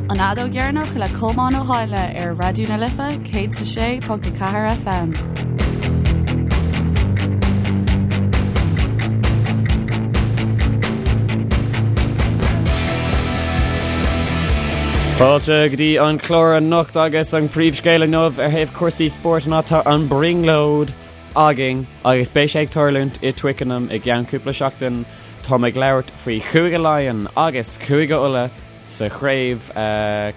An Fheadóg Dheireanach le Colmán Ó hÁinle ar Raidió na Life 106.4 FM. Fáilte go dtí an clár anocht agus an príomhscéal inniu ar thaobh cúrsaí spóirt ná tá an brionglóid againn agus beidh sé ag tarlúint i Twickenham i gceann cúpla seachtain. Táim ag labhairt faoi Chúige Laighean agus Cúige Uladh sa chraobh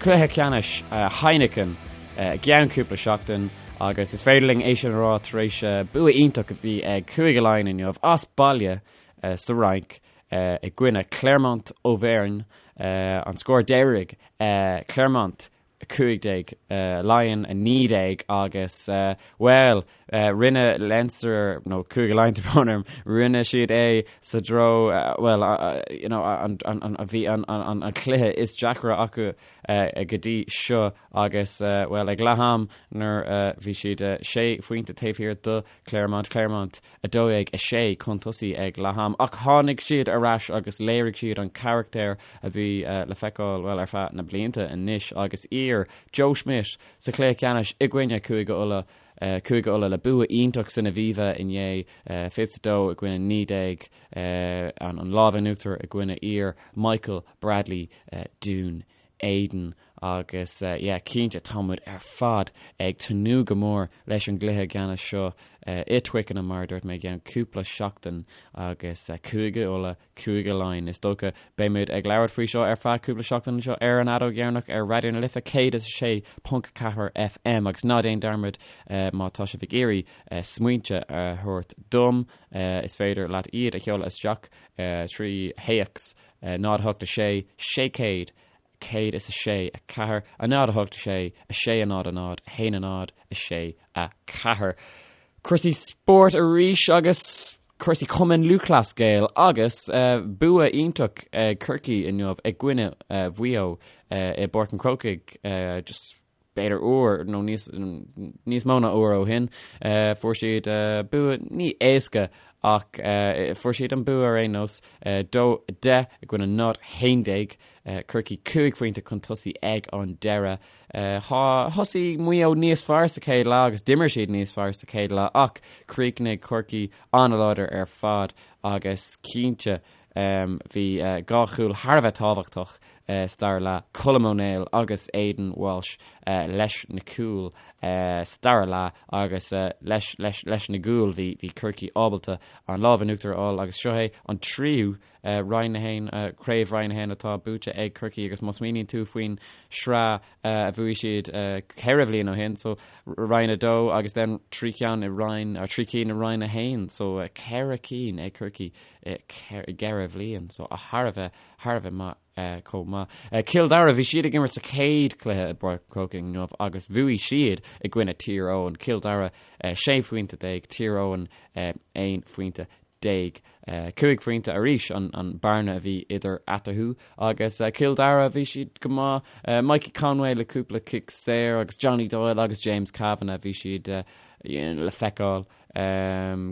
cluiche ceannais Heineken i gceann cúpla seachtain agus is féidir linn é sin a rá tar éis bua iontach a bhí ag Cúige Laighean inniu as baile sa Fhrainc i gcoinne Clermont Auvergne. An scór deiridh Clermont 15, Laighean 19 agus, bhuel, rinne Leinster, nó Cúige Laighean tá brón orm, rinne siad é sa dtreo, bhuel, you know, an, an, a bhí an, an, an cluiche is deacra acu go dtí seo agus, bhuel, ag leath am nuair a bhí siad sé phointe taobh thiar do Clermont, Clermont 12, 6 chun tosaigh ag leath am ach tháinig siad ar ais agus léirigh siad an carachtar a bhí le feiceáil, bhuel, ar feadh na blianta anois agus iar Joe Schmidt sa chluiche ceannais i gcoinne Cúige Uladh, Cúige Uladh le bua iontach san Aviva inné, 22 i gcoinne 19, an lámh in uachtar i gcoinne iar Michael Bradley Dún Éideann agus yeah cinnte tá muid ar fad ag tnúth go mór leis an gcluiche ceannais seo i Twickenham mar a dúirt mé i gceann cúpla seachtain agus Cúige Uladh, Cúige Laighean. Is dócha beidh muid ag labhairt faoi seo ar feadh cúpla seachtain anseo ar an Fheadóg Dheireanach ar Raidió na Life 106.4 FM agus ná déan dearmad má tá sibh ag iarraidh smaointe a thabhairt dom is féidir leat iad a sheoladh isteach trí théacs 0 8 6 600 106 4 0 8 6 6 0 0 1 0 6 4. Cúrsaí spóirt arís agus cúrsaí Cumann Lúthchleas Gael agus bua iontach ag Corcaigh inniu i gcoinne Mhaigh Eo i bPáirc an Chrócaigh. Just b'fhéidir uair nó níos, níos mó ná uair ó shin. Fuair siad bua ní éasca ach fuair siad an bua ar aon nós, 2 10 i gcoinne 0 11, Corcaigh 5 phointe chun tosaigh ag an deireadh. Thosaigh Maigh Eo níos fearr sa chéad leath agus d'imir siad níos fearr sa chéad leath ach chríochnaigh Corcaigh an-láidir ar fad agus cinnte Bhí dhá chúl thar a bheith tábhachtach sa dara leath, Colm Ó Néill agus Aidan Walsh leis na cúil sa dara leath agus leis leis na gcúil bhí bhí Corcaigh ábalta an lámh in uachtar a fháil agus seo é an tríú Roinn 1, Craobh Roinn 1 atá buaite ag Corcaigh agus má smaoiníonn tú faoin sraith a bhuaigh siad ceithre bhliain ó shin, so Roinn 2 agus then trí cheann i Roinn, trí cinn i Roinn 1, so ceithre cinn ag Corcaigh i gceithre bhliain, so thar a bheith, thar a bheith maith chomh maith. Cill Dara, bhí siad ag imirt sa chéad chluiche i bPáirc an Chrócaigh inniu agus bhuaigh siad i gcoinne Tír Eoghain. Cill Dara 16 phointe, Tír Eoghain 11 phointe. 5 phointe arís an bearna a bhí idir eatarthu agus Cill Dara, bhí siad go maith. Mikey Conway le cúpla cic saor agus Johnny Doyle agus James Kavanagh, bhí siad le feiceáil.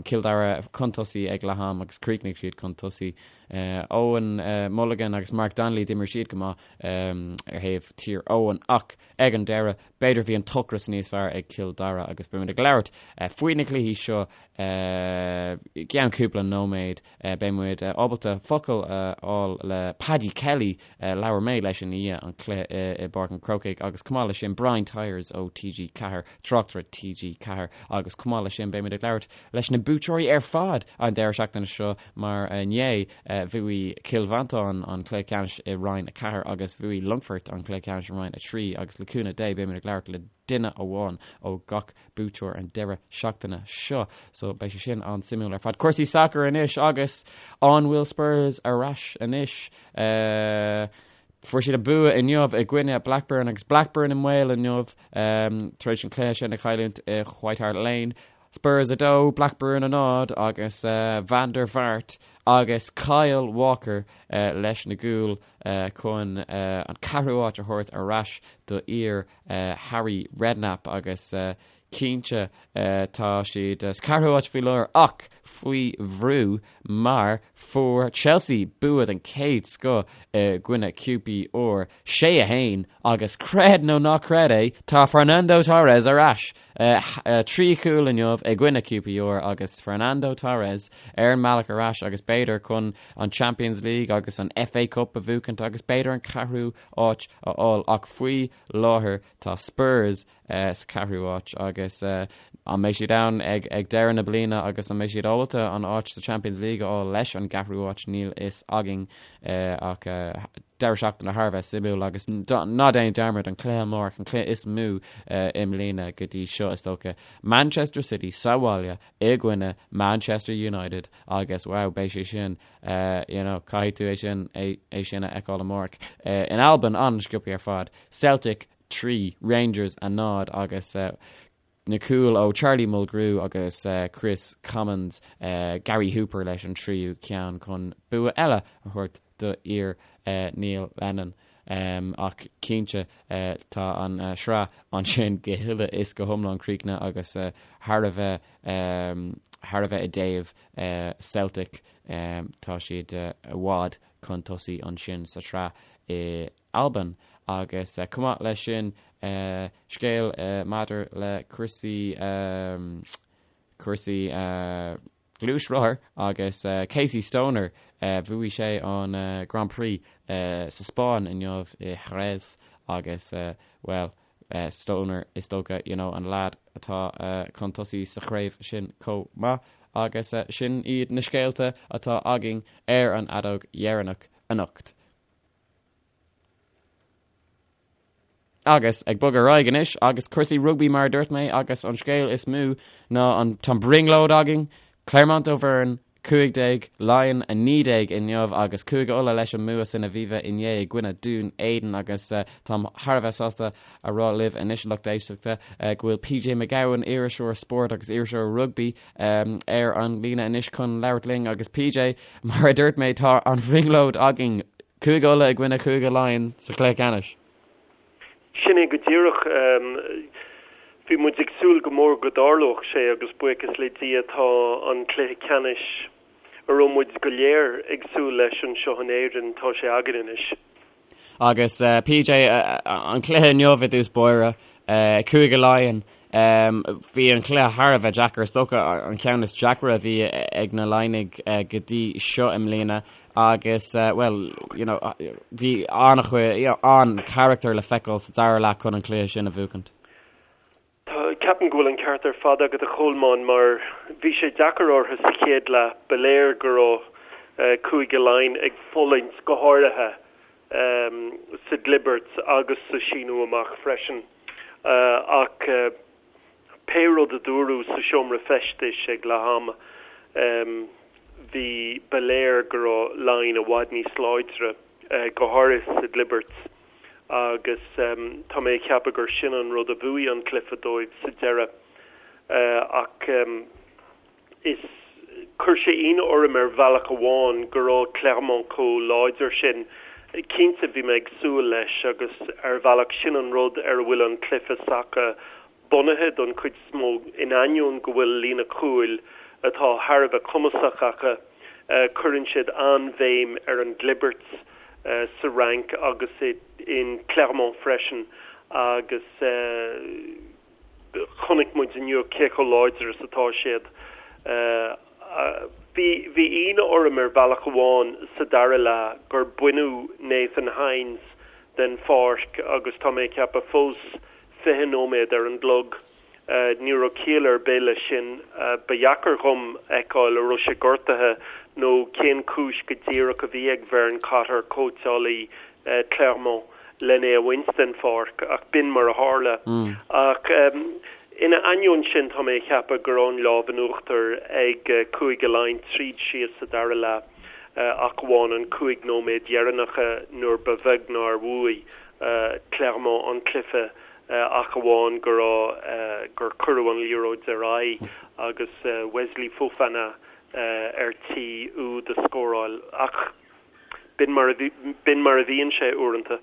Cill Dara chun tosaigh ag leath am agus chríochnaigh siad chun tosaigh. Eoin Mulligan agus Mark Donnelly, d'imir siad go maith ar thaobh Tír Eoghain ach ag an deireadh, b'fhéidir bhí an t-ocras níos fearr ag Cill Dara agus beimid ag labhairt faoi na cluichí seo i gceann cúpla nóiméad. Beidh muid ábalta focal a fháil le Paddy Kelly, labhair mé leis i ndiaidh an chluiche i bPáirc an Chrócaigh agus chomh maith leis sin Brian Tyers ó TG4, tráchtaire TG4 agus chomh maith leis sin beimid ag labhairt leis na buaiteoirí ar fad an deireadh seachtaine seo mar inné bhuaigh Cill Mhantáin an cluiche ceannais i Roinn 4 agus bhuaigh Longfort an cluiche ceannais i Roinn 3 agus le cúnamh Dé beimid ag labhairt le duine amháin ó gach buaiteoir an deireadh seachtaine seo. So beidh sé sin an-suimiúil ar fad. Cúrsaí sacair anois agus an bhfuil Spurs ar ais anois? Fuair siad a bua inniu i gcoinne Blackburn agus Blackburn i mbaol inniu tar éis an cluiche sin a chailliúint i White Hart Lane. Spurs 2, Blackburn 0 agus Van der Vaart agus Kyle Walker leis na gcúil chun an ceathrú áit a thabhairt ar ais do fhir Harry Redknapp agus. cinnte tá siad sa ceathrú háit faoi láthair ach faoi bhrú mar fuair Chelsea bua den chéad scoth i gcoinne QPR 6 1 agus creid nó ná creid é tá Fernando Torres ar ais! 3 chúl inniu i gcoinne QPR agus Fernando Torres ar an mbealach ar ais agus b'fhéidir chun an Champions League agus an FA Cup a bhuachaint agus b'fhéidir an ceathrú áit a fháil ach faoi láthair tá Spurs sa cheathrú háit agus an mbeidh siad ann ag deireadh na bliana agus an mbeidh siad ábalta an áit sa Champions League a fháil leis an gceathrú háit níl fhios againn ach deireadh seachtaine thar a bheith suimiúil agus ná déan dearmad an cluiche amárach an cluiche is mó i mbliana go dtí seo is dócha Manchester City sa bhaile i gcoinne Manchester United agus wow beidh sé sin you know caithfidh tú é sin é sin a fheiceáil amárach. In Albain an-sciobtha ar fad Celtic 3, Rangers 0 agus na cúil ó Charlie Mulgrew agus Kris Commons, Gary Hooper leis an tríú ceann chun bua eile a thabhairt do fhir Neil Lennon. Ach cinnte tá an sraith ansin go huile is go hiomlán críochnaithe agus thar a bheith thar a bheith i dtaobh Celtic tá siad i bhfad chun tosaigh ansin sa tsraith i Albain agus chomh maith leis sin scéal maidir le cúrsaí cúrsaí gluaisrothar agus Casey Stoner bhuaigh sé an Grand Prix sa Spáinn inniu i Jerez agus bhuel Stoner is dócha you know an leaid atá chun tosaigh sa chraobh sin chomh maith agus sin iad na scéalta atá againn ar an fheadóg dheireanach anocht. Agus ag bogadh ar aghaidh anois, agus cúrsaí rugbaí mar a dúirt mé, agus an scéal is mó ná an tá an brionglóid againn, Clermont Auvergne 15, Laighin 19 inniu agus Cúige Uladh leis an mbua san Aviva inné i gcoinne Dún Éideann agus táim thar a bheith sásta a rá libh anois a lucht éisteachta go bhfuil PJ Mac Gabhann, iriseoir spóirt agus iriseoir rugbaí, ar an líne anois chun labhairt linn agus PJ, mar a dúirt mé, tá an bhrionglóid againn, Cúige Uladh i gcoinne Chúige Laighean sa chluiche ceannais. Sin é go díreach. Bhí muid ag súil go mór go dtarlódh sé agus buíochas le Dia tá an cluiche ceannais a raibh muid go léir ag súil leis anseo in Éirinn, tá sé againn anois. Agus PJ, an cluiche inniu i dtús báire, Cúige Laighean, bhí an cluiche thar a bheith deacair, is dócha an ceann is deacra a bhí ag na Laighnigh go dtí seo i mbliana agus, bhuel, you know, bhí an-chuid, you know, an-charachtar le feiceáil sa dara leath chun an cluiche sin a bhuachaint. Tá, ceapaim go bhfuil an ceart ar fad agat a Cholmáin mar bhí sé deacair orthu sa chéad leath, ba léir go raibh Cúige Laighean ag fulaingt go háirithe sa gclibirt agus sa síniú amach freisin ach pé rud a dúradh sa seomra feistis ag leath ama bhí, ba léir go raibh Laighin i bhfad níos láidre go háirithe sa gclibirt. agus tá mé ag ceapadh gur sin an rud a bhuaigh an cluiche dóibh sa deireadh. Ach is chuir sé ionadh orm ar bhealach amháin go raibh Clermont chomh láidir sin. Cinnte bhí mé ag súil leis agus ar bhealach sin an rud ar a bhfuil an cluiche s'acu bunaithe don chuid is mó, in ainneoin go bhfuil líne chúil atá thar a bheith cumasach acu, cuireann siad an-bhéim ar an gclibirt sa Fhrainc agus in Clermont freisin agus chonaic muid inniu cé chomh láidir is atá siad. Bhí bhí ionadh orm ar bhealach amháin sa dara leath gur baineadh Nathan Hines den pháirc agus tá mé ag ceapadh fós 20 nóiméad ar an gclog. Ní raibh ciall ar bith leis sin. Ba dheacair dhom fheiceáil a raibh sé gortaithe nó cén chúis go díreach a bhí ag Vern Cotter, cóitseálaí Clermont, len é a bhaint den pháirc, ach b'in mar a tharla. Ach ina ainneoin sin, tá mé ag ceapadh go raibh an lámh in uachtar ag Cúige Laighean tríd síos sa dara leath, ach amháin an 5 nóiméad dheireanacha nuair ba bheag nár bhuaigh Clermont an cluiche ach amháin go raibh gur cuireadh an liathróid ar aghaidh agus Wesley Fofana ar tí úd a scóráil. Ach b'in mar a bhíonn sé uaireanta.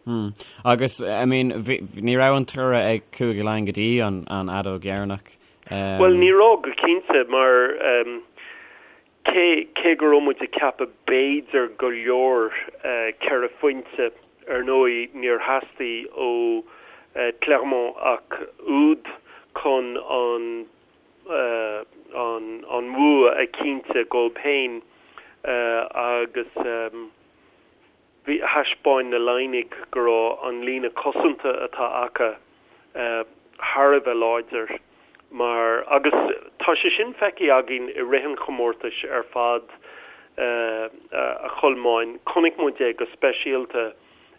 Agus, I mean, ní raibh an toradh ag Cúige Laighean go dtí an fheadóg dheireanach. Bhuel, ní raibh go cinnte, mar cé, cé go raibh muid ag ceapadh b'fhéidir go leor 4 phointe, ar ndóigh níor theastaigh ó Clermont ach úd chun an an bhua a chinntiú dóibh féin agus bhí, thaispeáin na Laighnigh go raibh an líne cosanta atá acu thar a bheith láidir mar, agus tá sé sin feicthe againn i rith an chomórtais ar fad a Cholmáin, chonaic muid é go speisialta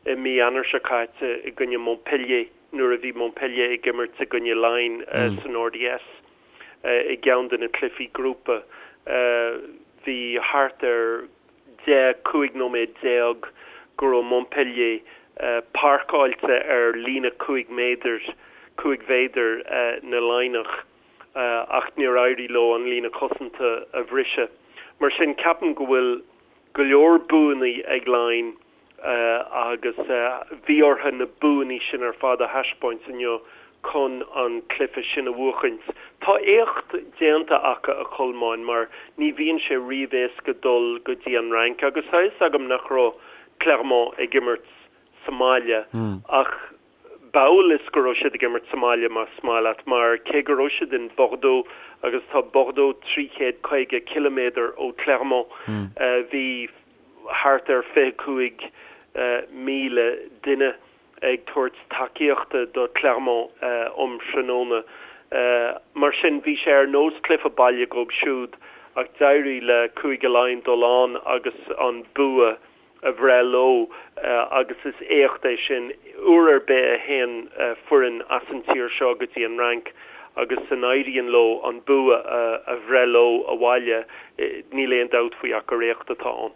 i mí Eanáir seo caite i gcoinne Montpellier nuair a bhí Montpellier ag imirt i gcoinne Laighin san RDS i gceann de na cluichí grúpa. Bhí thart ar 10, 15 nóiméad go raibh Montpellier páirceáilte ar líne 5 méadar, 5 mhéadar na Laighneach ach níor éirigh leo an líne cosanta a bhriseadh. Mar sin, ceapaim go bhfuil go leor buanna ag Laighin agus bhí orthu na buanna sin ar fad a thaispeáint inniu chun an cluiche sin a bhuachaint. Tá éacht déanta acu, a Cholmáin, mar ní bhíonn sé riamh éasca dul go dtí an Fhrainc agus tá a fhios agam nach raibh Clermont ag imirt sa mbaile ach b'amhail is go raibh siad ag imirt sa mbaile más maith leat mar cé go raibh siad in Bordeaux agus tá Bordeaux 350 ciliméadar ó Clermont bhí thart ar 25,000 duine ag tabhairt tacaíochta do Clermont um thráthnóna. Mar sin, bhí sé ar nós cluiche baile dhóibh siúd ach d'éirigh le Cúige Laighean dul ann agus an bua a bhreith leo agus is éacht é sin. Uair ar bith a théann foireann as an tír seo go dtí an Fhrainc agus a n-éiríonn leo an bua a bhreith leo abhaile, níl aon dabht faoi ach gur éacht atá ann.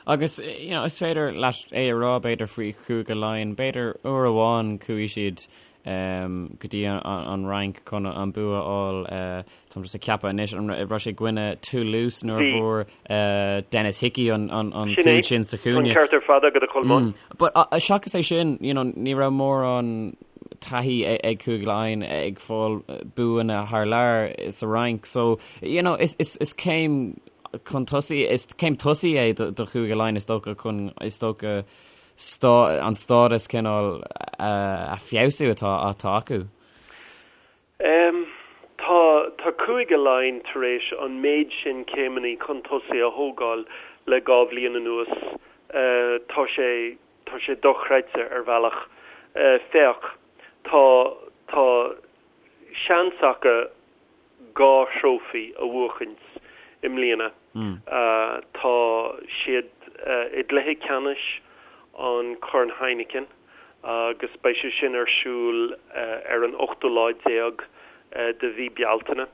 Agus, you know, is féidir leat é a rá, b'fhéidir, faoi Chúige Laighean, b'fhéidir uair amháin chuaigh siad go dtí an Fhrainc chun an bua a fháil, táim just ag ceapadh anois, an raibh sé i gcoinne Toulouse nuair a fuair Denis Hickie an cúl sin sa chúinne. An ceart ar fad agat a Cholmáin. But seachas é sin, you know, ní raibh mórán taithí ag Cúige Laighean ag fáil buanna thar lear sa Fhrainc, so, you know, is céim chun tosaigh, is céim tosaigh é do Chúige Laighean is dócha chun, is dócha, an stádas cineál a feabhsú atá atá acu. Tá tá Cúige Laighean tar éis an méid sin céimeanna chun tosaigh a thógáil le 2 bhliain anuas. Tá sé tá sé dochreidte ar bhealach. Féach, tá tá seans acu 2 thrófaí a bhuachaint i mbliana. Tá siad i gcluiche ceannais an Chorn Heineken agus beidh sé sin ar siúl ar an ochtú lá déag de mhí Bealtaine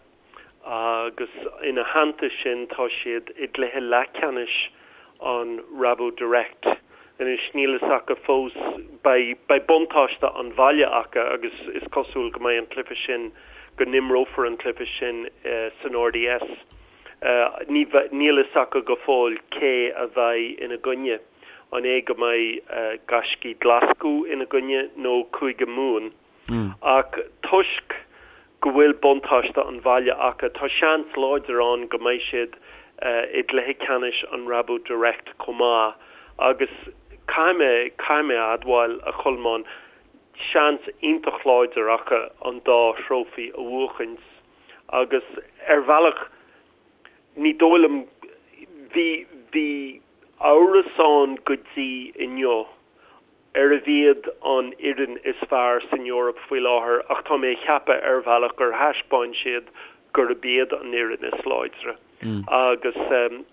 agus ina theannta sin tá siad i gcluiche leathcheannais an Rabo Direct. Anois níl fhios acu fós, beidh, beidh buntáiste an bhaile acu agus is cosúil go mbeidh an cluiche sin, go n-imreofar an cluiche sin san RDS. Ní, níl fhios acu go fóill cé a bheidh ina gcoinne, an é go mbeidh Gaiscígh Ghlaschú ina gcoinne nó Cúige Mumhan. Ach toisc go bhfuil buntáiste an bhaile acu, tá seans láidir ann go mbeidh siad i gcluiche ceannais an Rabo Direct chomh maith agus caithfidh mé, caithfidh mé a admháil, a Cholmáin, seans iontach láidir acu an dá thrófaí a bhuachaint agus ar bhealach ní dóigh liom, bhí, bhí amhras ann go dtí inniu arbh iad an fhoireann is fearr san Eoraip faoi láthair ach tá mé ag ceapadh ar bhealach gur thaispeáin siad gurb iad an fhoireann is láidre agus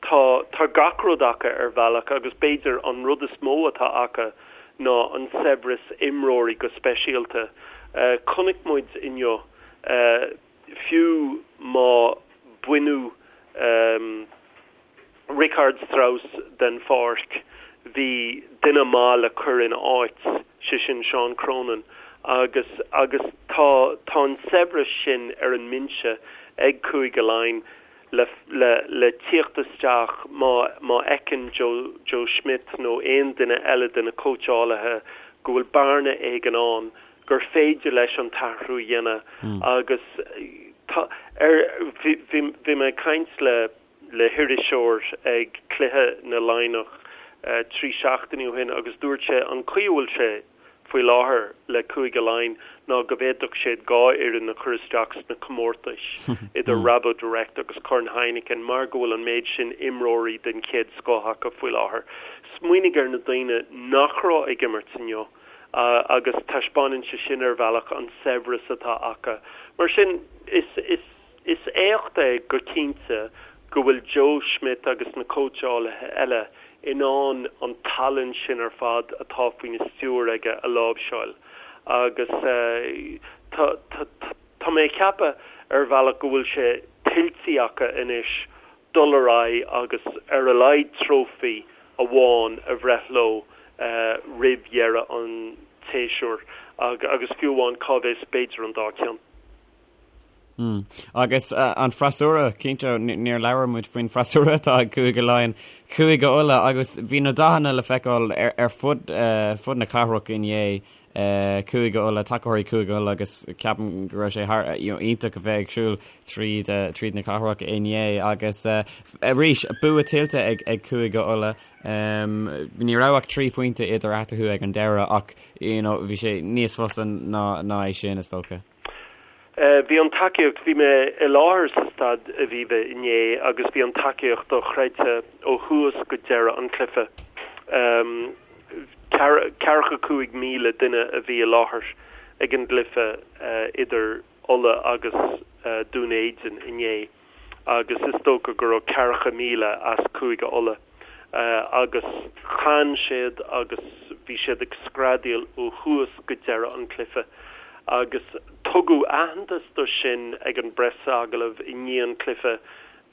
tá tá gach rud acu ar bhealach agus b'fhéidir an rud is mó atá acu ná an saibhreas imreoirí go speisialta. Chonaic muid inniu fiú má baineadh Richardt Strauss den pháirc, bhí duine maith le cur ina áit, sé sin Seán Cronin, agus agus tá tá an saibhreas sin ar an mbinse ag Cúige Laighean le le le tíocht isteach má má fheiceann Joe Joe Schmidt nó aon duine eile de na cóitseálaithe. go bhfuil bearna éigin ann gur féidir leis an t-athrú a dhéanamh agus tá ar bhí bhí mé ag caint le le hiriseoir ag cluiche na Laighneach 3 seachtainí ó shin agus dúirt sé an chaoi a bhfuil sé faoi láthair le Cúige Laighean ná go bhféadfadh siad 2 fhoireann a chur isteach sna comórtais idir Rabo Direct agus Corn Heineken mar go bhfuil an méid sin imreoirí den chéad scoth acu faoi láthair. Smaoinigh ar na daoine nach raibh ag imirt inniu agus taispeánann sé sin ar bhealach an saibhreas atá acu. Mar sin is is is éacht é go cinnte go bhfuil Joe Schmidt agus na cóitseálaithe eile in ann an tallann sin ar fad atá faoina stiúir aige a láimhseáil agus tá tá tá mé ag ceapadh ar bhealach go bhfuil sé tuillte acu anois dul ar aghaidh agus ar a laghad trófaí amháin a bhreith leo roimh dheireadh an tséasúir agus fiú amháin cá bhfios b'fhéidir an dá cheann. Agus an freasúra, cinnte, níor labhair muid faoin freasúra atá ag Cúige Laighean, Cúige Uladh, agus bhí na dathanna le feiceáil ar fud fud na cathrach inné, Cúige Uladh, tacóirí Cúige Uladh agus ceapaim go raibh sé thar, you know, iontach a bheith ag siúl tríd tríd na cathrach inné agus arís, bua tuillte ag ag Cúige Uladh. Ní raibh ach 3 phointe idir eatarthu ag an deireadh ach, you know, bhí sé níos fusa ná ná é sin, is dócha. Bhí an tacaíocht, bhí mé i láthair sa Staid Aviva inné agus bhí an tacaíocht dochreidte ó thús go deireadh an chluiche. Ceathracha 5,000 duine a bhí i láthair ag an gcluiche idir Ulaidh agus Dún Éideann inné. agus is dócha go raibh 40,000 as Cúige Uladh agus chan siad agus bhí siad ag screadaíl ó thús go deireadh an chluiche agus tugadh aitheantas do sin ag an bpreasagallamh i ndiaidh an chluiche.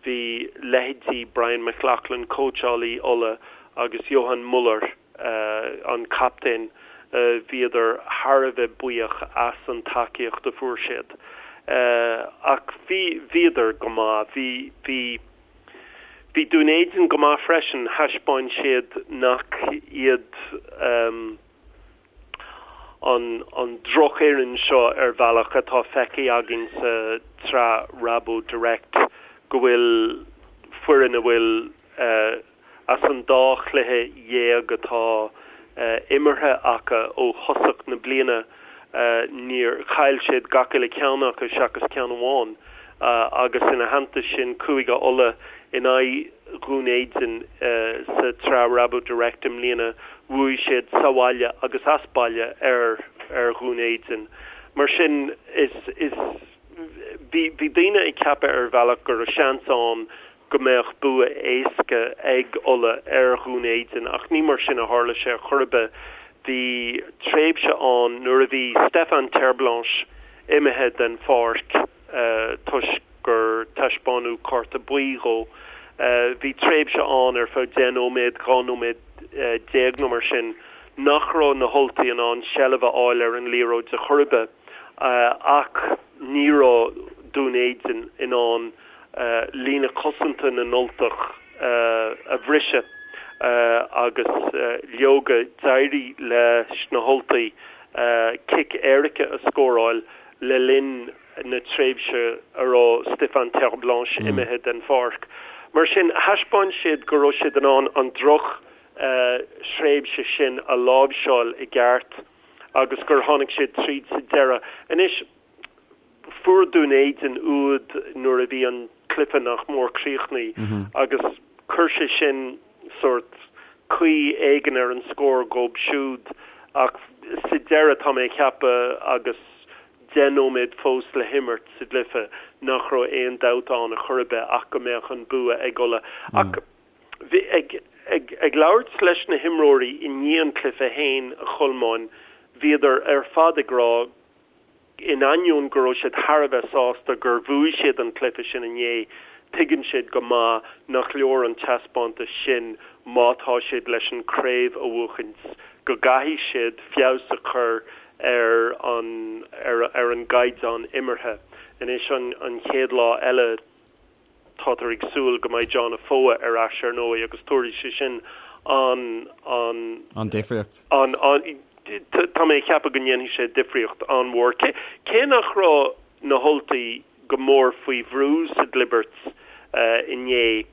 Bhí leithéidí Brian McLaughlin, cóitseálaí Uladh, agus Johann Muller, an captaen, bhíodar thar a bheith buíoch as an tacaíocht a fuair siad. Ach bhí, bhíodar go maith. Bhí, bhí, bhí Dún Éideann go maith freisin. Thaispeáin siad nach iad an, an drochfhoireann seo ar bhealach atá feicthe againn sa tsraith Rabo Direct, go bhfuil foireann a bhfuil As an dá chluiche dhéag atá imeartha acu ó thosach na bliana, níor chaill siad gach uile cheann acu seachas ceann amháin agus ina theannta sin Cúige Uladh in aghaidh Dhún Éideann sa tsraith Rabo Direct i mbliana, bhuaigh siad sa bhaile agus as baile ar ar Dhún Éideann. Mar sin is is bhí bhí daoine ag ceapadh ar bhealach go raibh seans ann go mbeadh bua éasca ag Ulaidh ar Dhún Éideann ach ní mar sin a tharla sé ar chor ar bith. Bhí tréimhse ann nuair a bhí Stefan Terblanche imithe den pháirc toisc gur taispeánadh cárta buí dhó. Bhí tréimhse ann ar feadh 10 nóiméad, 12 nóiméad nó mar sin nach raibh na hUltaigh in ann seilbh a fháil ar an liathróid ar chor ar bith ach ní raibh Dún Éideann in ann líne cosanta na nUltach a bhriseadh agus leoga d'éirigh leis na hUltaigh cic éirice a scóráil le linn na tréimhse a raibh Stefan Terblanche imithe den pháirc. Mar sin, thaispeáin siad go raibh siad in ann an droch thréimhse sin a láimhseáil i gceart agus gur tháinig siad tríd sa deireadh. Anois, Fuair Dún Éideann úd nuair a bhí an cluiche nach mór críochnaithe agus chuir sé sin sórt caoi éigin ar an scór dhóibh siúd ach sa deireadh tá mé ag ceapadh agus 10 nóiméad fós le himirt sa gcluiche nach raibh aon dabht ann a chor ar bith ach go mbeadh an bua ag Ulaidh. Ach bhí ag ag ag labhairt leis na himreoirí i ndiaidh an chluiche féin, a Cholmáin, bhíodar ar fad ag rá In ainneoin go raibh siad thar a bheith sásta gur bhuaigh siad an cluiche sin inné, tuigeann siad go maith nach leor an taispeántas sin má tá siad leis an craobh a bhuachaint, go gcaithfidh siad feabhas a chur ar an ar an gcaighdeán imeartha. Anois an chéad lá eile. Táthar ag súil go mbeidh John Afoa ar ais ar ndóigh agus tabharfaidh sé sin an, an. An difríocht. An, an. Tá mé ag ceapadh go ndéanfaidh sé difríocht an-mhór. Cé nach raibh na hUltaigh go mór faoi bhrú sa gclibirt inné,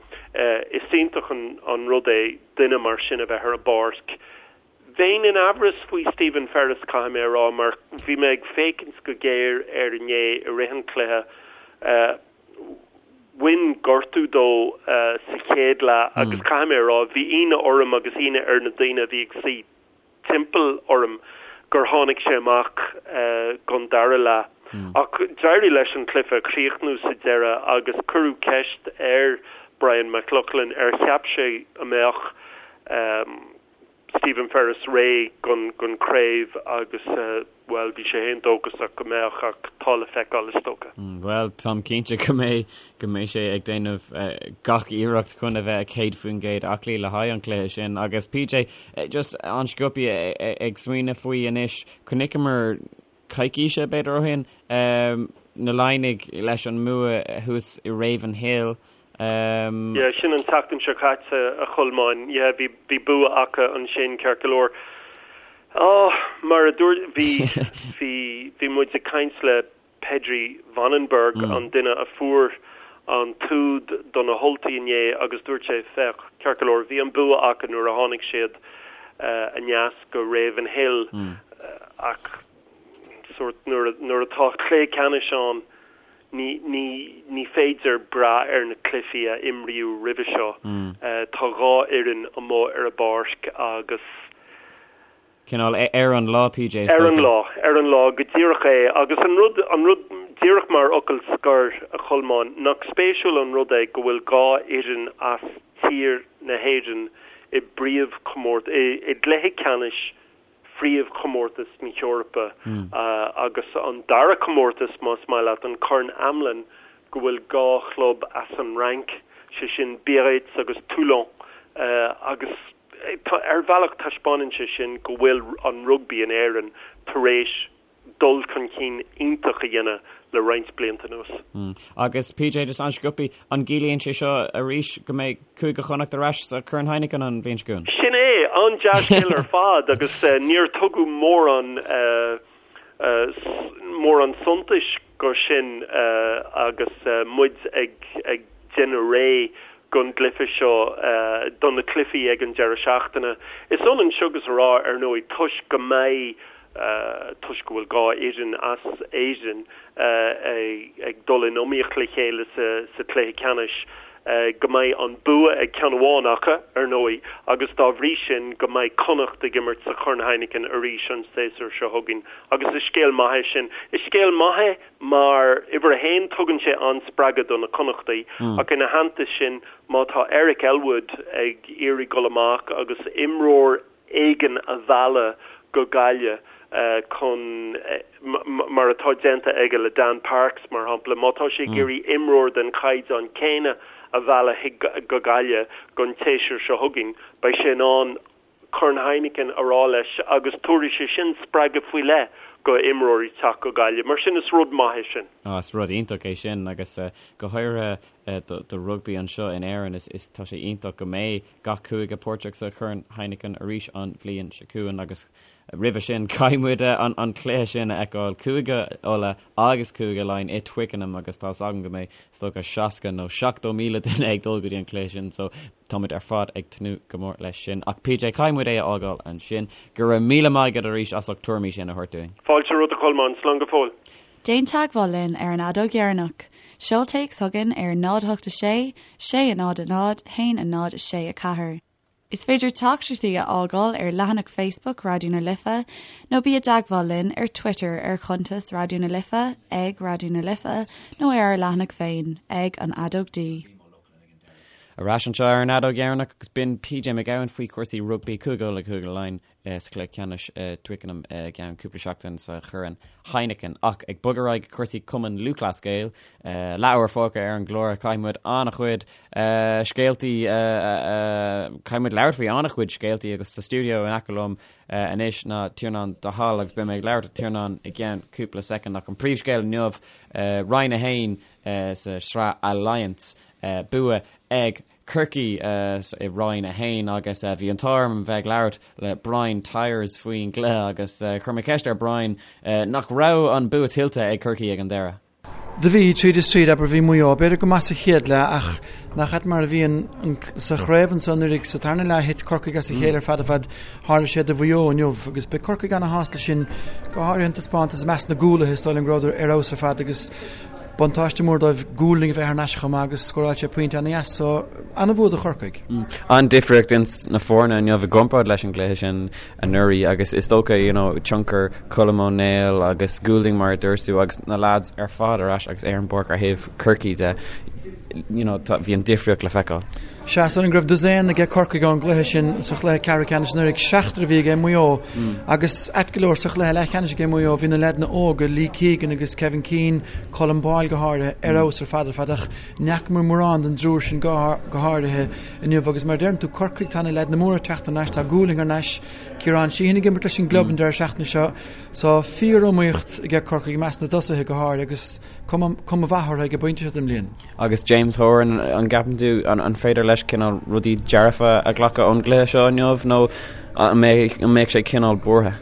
is iontach an rud é duine mar sin a bheith ar an bpáirc. Bheinn in amhras faoi Stephen Ferris, caithfidh mé a rá, mar bhí mé ag féachaint go géar air inné i rith an chluiche. Bhain gortú dó sa chéad leath agus caithfidh mé a rá, bhí ionadh orm agus ionadh ar na daoine a bhí ag suí timpeall orm gur tháinig sé amach don dara leath. Ach d'éirigh leis an cluiche a chríochnú sa deireadh agus cuireadh ceist ar Brian McLaughlin ar cheap sé a mbeadh Stephen Ferris réidh don chraobh agus, bhuel, bhí sé féin dóchasach go mbeadh ach tá le feiceáil is dócha. Bhuel, táim cinnte go mbeidh, go mbeidh sé ag déanamh gach iarracht chun a bheith 100% aclaí le haghaidh an chluiche sin. Agus PJ, just an-sciobtha ag smaoineamh faoi anois, chonaiceamar coicíse, b'fhéidir, ó shin, na Laighnigh leis an mbua thuas i Ravenhill. Yeah, sin an tseachtain seo caite, a Cholmáin. Yeah, bhí, bhí bua acu ansin, ceart go leor. Oh, mar a dúirt, bhí, bhí, bhí muid ag caint le Pedrie Wannenburg, an duine a fuair an t-úd do na hUltaigh inné agus dúirt sé, féach, ceart go leor, bhí an bua acu nuair a tháinig siad aneas go Ravenhill ach sórt nuair nuair atá cluiche ceannais ann ní ní ní féidir brath ar na cluichí a imríodh roimhe seo. Tá dhá fhoireann amuigh ar an bpáirc agus Cineál ar an lá, PJ, is Ar an lá, ar an lá, go díreach é. Agus an rud, an rud, díreach mar fhocal scoir, a Cholmáin, nach spéisiúil an rud é go bhfuil dhá fhoireann as tír na hÉireann i bpríomhchomórt, i, i gcluiche ceannais phríomhchomórtas na hEorpa agus an dara comórtas, más maith leat, an Corn Amlin, go bhfuil dhá chlub as an Fhrainc, sé sin Biarritz agus Toulon, agus. Ar bhealach taispeánann sé sin go bhfuil an rugbaí in Éirinn tar éis dul chun cinn iontach a dhéanamh le roinnt blianta anuas. Agus PJ, just an-sciobtha, an gciallaíonn sé seo arís go mbeidh Cúige Chonnacht ar ais sa Chorn Heineken an bhliain seo chugainn? Sin é! An-dea-scéal ar fad agus níor tugadh mórán mórán suntais go sin agus muid ag déanamh réidh don gcluiche seo, do na cluichí ag an deireadh seachtaine. Is ionann seo agus a rá, ar ndóigh, toisc go mbeidh, toisc go bhfuil dhá fhoireann as Éirinn ag dul in iomaíocht le chéile sa chluiche ceannais, go mbeidh an bua ag ceann amháin acu, ar ndóigh, agus dá bhrí sin go mbeidh Connacht ag imirt sa Chorn Heineken arís an séasúr seo chugainn. Agus is scéal maith é sin. Is scéal maith é mar, uimhir a haon, tugann sé an-spreagadh do na Connachtaigh, ach ina theannta sin, má tá Eric Elwood ag iarraidh dul amach agus imreoir éigin a mhealladh go Gaillimh chun, mar atá déanta aige le Dan Parks, mar shampla, má tá sé ag iarraidh imreoir den chaighdeán céanna a mhealladh go Gaillimh don tséasúr seo chugainn, beidh sé in ann Corn Heineken a rá leis agus tabharfaidh sé sin spreagadh faoi leith go imreoirí teacht go Gaillimh. Mar sin is rud maith é sin. Á, is rud iontach é sin agus go háirithe do rugbaí anseo in Éirinn is tá sé iontach go mbeidh gach cúige páirteach sa Chorn Heineken arís an bhliain seo chugainn agus roimhe sin caithfidh muid an cluiche sin a fheiceáil, Cúige Uladh agus Cúige Laighean i Twickenham agus tá's agam go mbeidh is dócha 60 nó 70,000 duine ag dul go dtí an cluiche sin so tá muid ar fad ag tnúth go mór leis sin. Ach PJ, caithfidh muid é a fhágáil ansin. Go raibh míle maith agat arís as ucht tuairimí sin a thabhairt dúinn. Fáilte romhat a Cholmáin, slán go fóill. Déan teagmháil linn ar an Fheadóg Dheireanach. Seol téacs chugainn ar 0 8 6 6 0 0 1 0 6 4. Is féidir teachtaireachtaí a fhágáil ar leathanach Facebook Raidió na Life nó bí i dteagmháil linn ar Twitter ar chuntas Raidió na Life, ag Raidió na Life, nó ar ár leathanach féin, ag An Fheadóg D. Ar ais anseo ar an Fheadóg Dheireanach agus b'in PJ Mac Gabhann faoi chúrsaí rugbaí, Cúige Uladh, Cúige Laighean. sa chluiche ceannais i Twickenham i gceann cúpla seachtain sa Chorn Heineken. Ach ag bogadh ar aghaidh go cúrsaí Cumann Lúthchleas Gael, leathuair fágtha ar an gclár, caithfidh muid an-chuid scéaltaí, caithfidh muid labhairt faoi an-chuid scéaltaí agus sa stiúideo in aice liom anois ná Tiarnán de Hál agus beidh mé ag labhairt le Tiarnán i gceann cúpla soicind ach an príomhscéal inniu, Roinn 1 sa tsraith Alliance, bua ag. Chorcaí i Roinn 1 agus bhí an t-ádh orm bheith ag labhairt le Brian Tyers faoin gcluiche agus chuir mé ceist ar Brian nach raibh an bua tuillte ag Corcaigh ag an deireadh. Do bhí, tríd is tríd, abair, bhí Maigh Eo, b'fhéidir go maith sa chéad leath ach nach ait mar a bhíonn sa chraobh anso anuraidh sa tarna leath thit Corcaigh as a chéile ar fad ar fad, tharla sé do Mhaigh Eo inniu agus beidh Corcaigh ana-shásta leis sin, go háirithe an taispeántas i measc na gcúlaithe, is dóigh liom go rabhadar ar fheabhas ar fad agus buntáiste mór dóibh Goulding a bheith thar n-ais chomh maith agus scóráil sé pointe ana-dheas so ana-bhua do Chorcaigh. An-difríocht ins na foirne inniu i gcomparáid leis an gcluiche sin anuraidh agus is dócha you know tionchar Colm Ó Néill agus Goulding mar a dúirt tú agus na lads ar fad ar ais agus ar an bpáirc ar thaobh Chorcaí de you know tá bhí an difríocht le feiceáil. Sea, is dóigh liom go raibh dosaen aige Corcaigh ón gcluiche sin sa chluiche ceathrú ceannais anuraidh, seachtar a bhí aige Maigh Eo agus ait go leor sa chluiche leathcheannais aige Maigh Eo bhí na leaideanna óga, Lee Keegan agus Kevin Keane, Colm Boyle go háirithe, ar fheabhas ar fad ar fad ach ní fhacamar mórán den dtriúr sin go háirithe inniu agus mar a deireann tú, Corcaigh, tá na leaideanna móra ag teacht thar n-ais, tá Goulding thar n-ais, Ciarán Sheehan ag imirt leis an gclub an deireadh seachtaine seo so fíor-iomaíocht aige Corcaigh i measc na dtosaithe go háirithe agus cuma mhaith orthu ag an bpointe seo den mbliain. Agus James Horan, an gceapann tú, an féidir leis cineál rudaí dearfa a ghlacadh ón gcluiche seo inniu nó an mbeidh sé cineál buartha?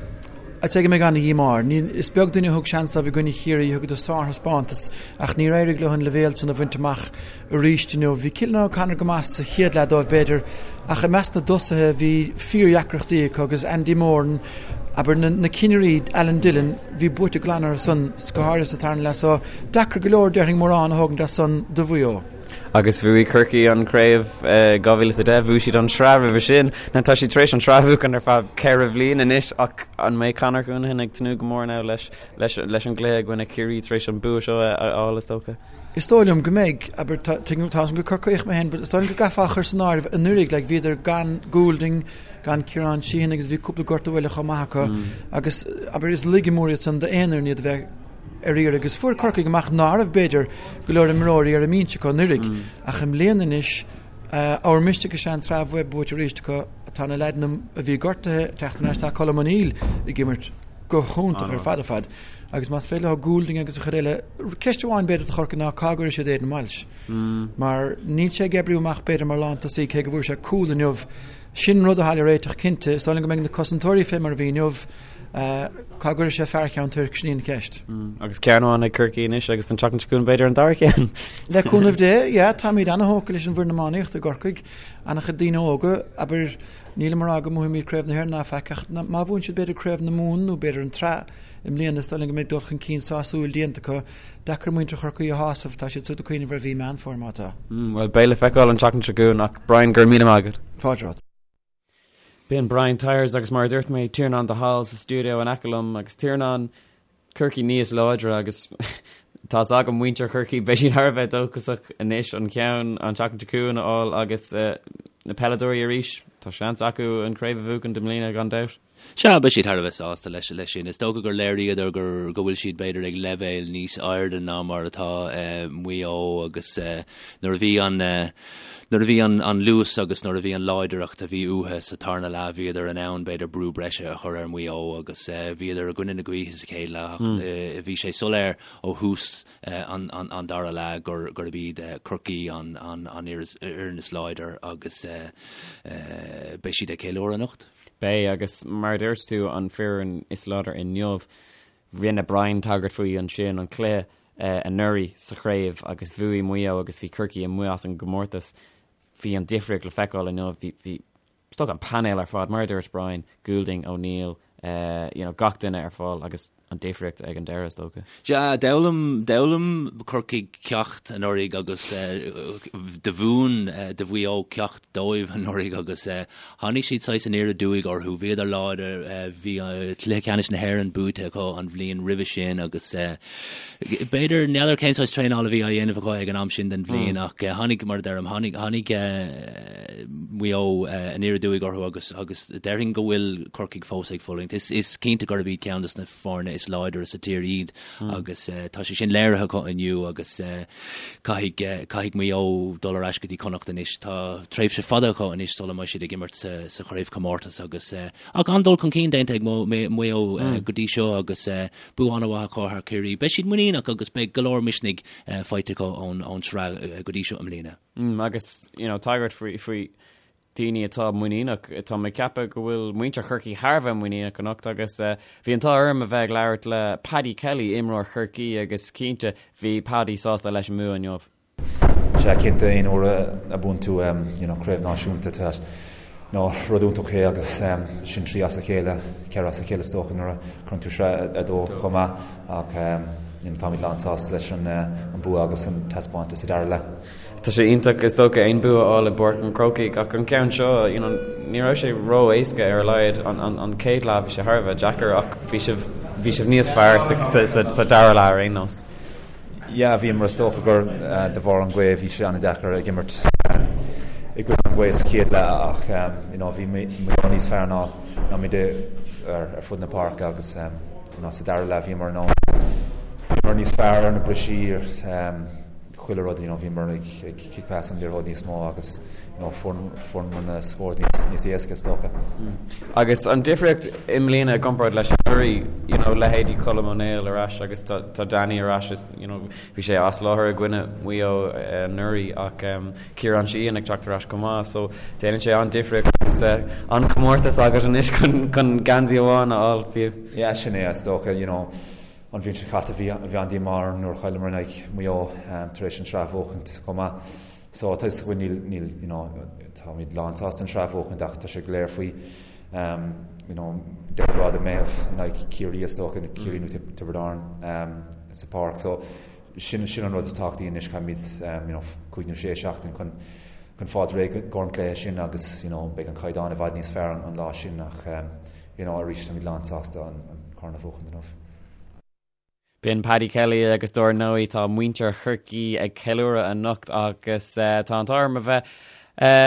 I'd say go mbeidh ana-dhíomá air. Is beag duine a thug seans dóibh i gcoinne Chiarraí, thugadar sárthaispeántas ach níor éirigh leo an leibhéal san a bhaint amach arís inniu. Bhí Cillian O'Connor go maith sa chéad leath dóibh b'fhéidir ach i measc na dtosaithe bhí fíordheacrachtaí acu agus Andy Moran, abair, na cinnirí, Alan Dillon, bhí buaite glan orthu san, go háirithe sa tarna leath so deacair go leor déarfainn mórán a thógaint as san do Mhaigh Eo. Agus bhuaigh Corcaigh an chraobh i 2010, bhuaigh siad an tsraith roimhe sin. Now tá siad tar éis an tsraith a bhuachan ar feadh ceithre bhliain anois ach an mbeidh Conor Counihan ag tnúth go mór now leis leis leis an gcluiche i gcoinne Ciarraí tar éis an bua seo a fháil is dócha? Is dóigh liom go mbeidh, abair, tá tuigim tá a fhios agam gur Corcaíoch mé féin but is dóigh liom go gcaithfeá a chur san áireamh anuraidh like bhíodar gan Goulding, gan Ciarán Sheehan agus bhí cúpla gortú eile chomh maith acu agus abair is laige mór iad san d'aon fhoireann iad a bheith ar iarraidh agus fuair Corcaigh amach ná raibh b'fhéidir go leor imreoirí ar an mbinse acu anuraidh ach i mbliana anois ábhar misnigh is ea an tsraith a bheith buaite arís acu. Tá na leaideanna a bhí gortaithe ag teacht thar n-ais, tá Colm O'Neill ag imirt go hiontach ar fad ar fad agus más féidir leo Goulding agus an chuid eile, ceist amháin b'fhéidir do Chorcaigh ná cá gcuirfidh siad Aidan Walsh mar níl sé ag oibriú amach b'fhéidir mar lántosaí cé go bhfuair sé cúl inniu. Sin rud atá le réiteach cinnte. Is dóigh liom go mbeidh na cosantóirí fé mar a bhí inniu. Cá gcuirfidh sé fear Cheann Toirc, sin í an cheist. Agus ceann amháin ag Corcaigh anois agus an tseachtain seo chugainn b'fhéidir an dara ceann. Le cúnamh Dé, yeah, táimid ana-thógtha leis an bhfoireann iománaíochta i gCorcaigh. Ana-chuid daoine óga, abair, nílim ag rá go mbuafaimid Craobh na hÉireann ná faic ach má bhuann siad b'fhéidir Craobh na Mumhan nó b'fhéidir an tsraith i mbliana is dóigh liom go mbeidh dul chun cinn sásúil déanta acu. Deacair muintir Chorcaí a shásamh, tá siad siúd ag cuimhneamh ar mhí Meán Fómhair má tá. Bhuel, beidh le feiceáil an tseachtain seo chugainn ach Brian, go raibh míle maith agat. Fáilte romhat. B'in Brian Tyers agus mar a dúirt mé, Tiarnán de Hál sa stiúideo in aice liom agus Tiarnán, Corcaigh níos láidre agus tá's agam muintir Chorcaí, beidh siad thar a bheith dóchasach anois an ceann an tseachtain seo chugainn a fháil agus na peileadóirí arís, tá seans acu an chraobh a bhuachan i mbliana gan dabht. Sea, beidh siad thar a bheith sásta leis leis sin. Is dócha gur léiríodar gur go bhfuil siad b'fhéidir ag leibhéal níos airde ná mar atá Maigh Eo agus nuair a bhí an nuair a bhí an an luas agus nuair a bhí an láidreacht a bhí uathu sa tarna leath bhíodar in ann b'fhéidir brú breise a chur ar Mhaigh Eo agus bhíodar i gcoinne na gaoithe sa chéad leath ach bhí sé soiléir ó thús an an dara leath gur gurb iad Corcaigh an an an fhoireann is láidir agus beidh siad ag ceiliúradh anocht. Beidh, agus mar a dúirt tú, an foireann is láidre inniu. Rinne Brian tagairt faoi ansin, an cluiche anuraidh sa chraobh agus bhuaigh Maigh Eo agus bhí Corcaigh amuigh as an gcomórtas. Bhí an difríocht le feiceáil inniu. Bhí, bhí, is dócha an painéal ar fad, mar a dúirt Brian, Goulding, O'Neill, you know, gach duine ar fáil agus an difríocht ag an deireadh, is dócha. Sea, d'fhoghlaim, d'fhoghlaim Corcaigh ceacht anuraidh agus do mhúin, do Mhaigh Eo ceacht dóibh anuraidh agus tháinig siad saghas aniar aduaidh orthu. Bhíodar láidir, bhí cluiche ceannais na hÉireann buaite acu an bhliain roimhe sin agus b'fhéidir, n'fheadar cén saghas traenála a bhí á dhéanamh acu ag an am sin den bhliain ach tháinig, mar a deirim, tháinig, tháinig Maigh Eo aniar aduaidh orthu agus, agus déarfainn go bhfuil Corcaigh fós ag fulaingt. Is, is cinnte gurb iad ceann de na foirne is. is láidre sa tír iad agus tá sé sin léirithe acu inniu agus caithfidh caithfidh Maigh Eo dul ar ais go dtí Connacht anois. Tá tréimhse fada acu anois sula mbeidh siad ag imirt sa sa chraobhchomórtas agus ach an-dul chun cinn déanta ag Maigh Eo go dtí seo agus bua an-mhaith acu thar Ciarraí. Beidh siad muiníneach agus beidh go leor misnigh faighte acu ón ón tsraith go dtí seo i mbliana. Agus you know tagairt faoi faoi daoine atá muiníneach. Tá mé ag ceapadh go bhfuil muintir Chorcaí thar a bheith muiníneach anocht agus bhí an t-ádh orm a bheith ag labhairt le Paddy Kelly, imreoir Chorcaí agus cinnte bhí Paddy sásta leis an mbua inniu. Sea, cinnte, aon uair a buann tú you know craobh náisiúnta tá you know rud iontach é agus sin 3 as a chéile, 4 as a chéile is dócha nuair a chuireann tú sraith 2 chomh maith ach you know táimid lán sásta leis an bua agus an taispeántas sa dara leath. Tá sé iontach is dócha aon bua a fháil i bPáirc an Chrócaigh ach an ceann seo, you know, ní raibh sé ró-éasca ar a laghad. An, an, an chéad leath bhí sé thar a bheith deacair ach bhí sibh, bhí sibh níos fearr sa, sa, sa, sa dara leath ar aon nós. Yeah, bhíomar is dócha gur de bharr an ghaoth bhí sé an-deacair ag imirt i gcoinne an ghaoth sa chéad leath ach you know, bhí Maigh Eo níos fearr ná, ná muid ar, ar fud na páirce agus you know, sa dara leath bhíomar in ann, bhíomar níos fearr ar na brisí, chuile rud, you know, bhíomar ag ag kick pass an liathróid níos mó agus you know, fuair fuaireamar na scores níos níos éasca is dócha. Agus an difríocht i mbliana i gcomparáid leis anuraidh, you know, leithéidí Colm Ó Néill ar ais agus tá tá Danny ar ais is, you know, bhí sé as láthair i gcoinne Mhaigh Eo anuraidh ach um, Ciarán Sheehan ag teacht ar ais chomh maith so déanann sé an-difríocht agus uh, an-chomórtas agat anois chun chun geansaí amháin a fháil fiú. Yeah, sin é is dócha, you know, An bhliain seo caite bhí an-díomá orm nuair a chailleamar in aghaidh Mhaigh Eo tar éis an tsraith a bhuachaint chomh maith. So tá fhios againn níl, níl, you know, táimid lán sásta an tsraith a bhuachaint ach tá sé go léir faoi um, you know, deireadh lá de Meitheamh in aghaidh Ciarraí is dócha, Ciarraí nó Tiobraid Árann um, sa pháirc. So sin, sin an rud is tábhachtaí anois caithfimid um, you know, 5 nó 6 seachtain chun chun fáil réidh don chluiche sin agus you know, beidh an caighdeán i bhfad níos fearr an, an lá sin ach um, you know, arís táimid lán sásta an corn a bhuachan inniu. B'in Paddy Kelly agus dár ndóigh tá muintir Chorcaí ag ceiliúradh anocht agus tá an t-ádh orm a bheith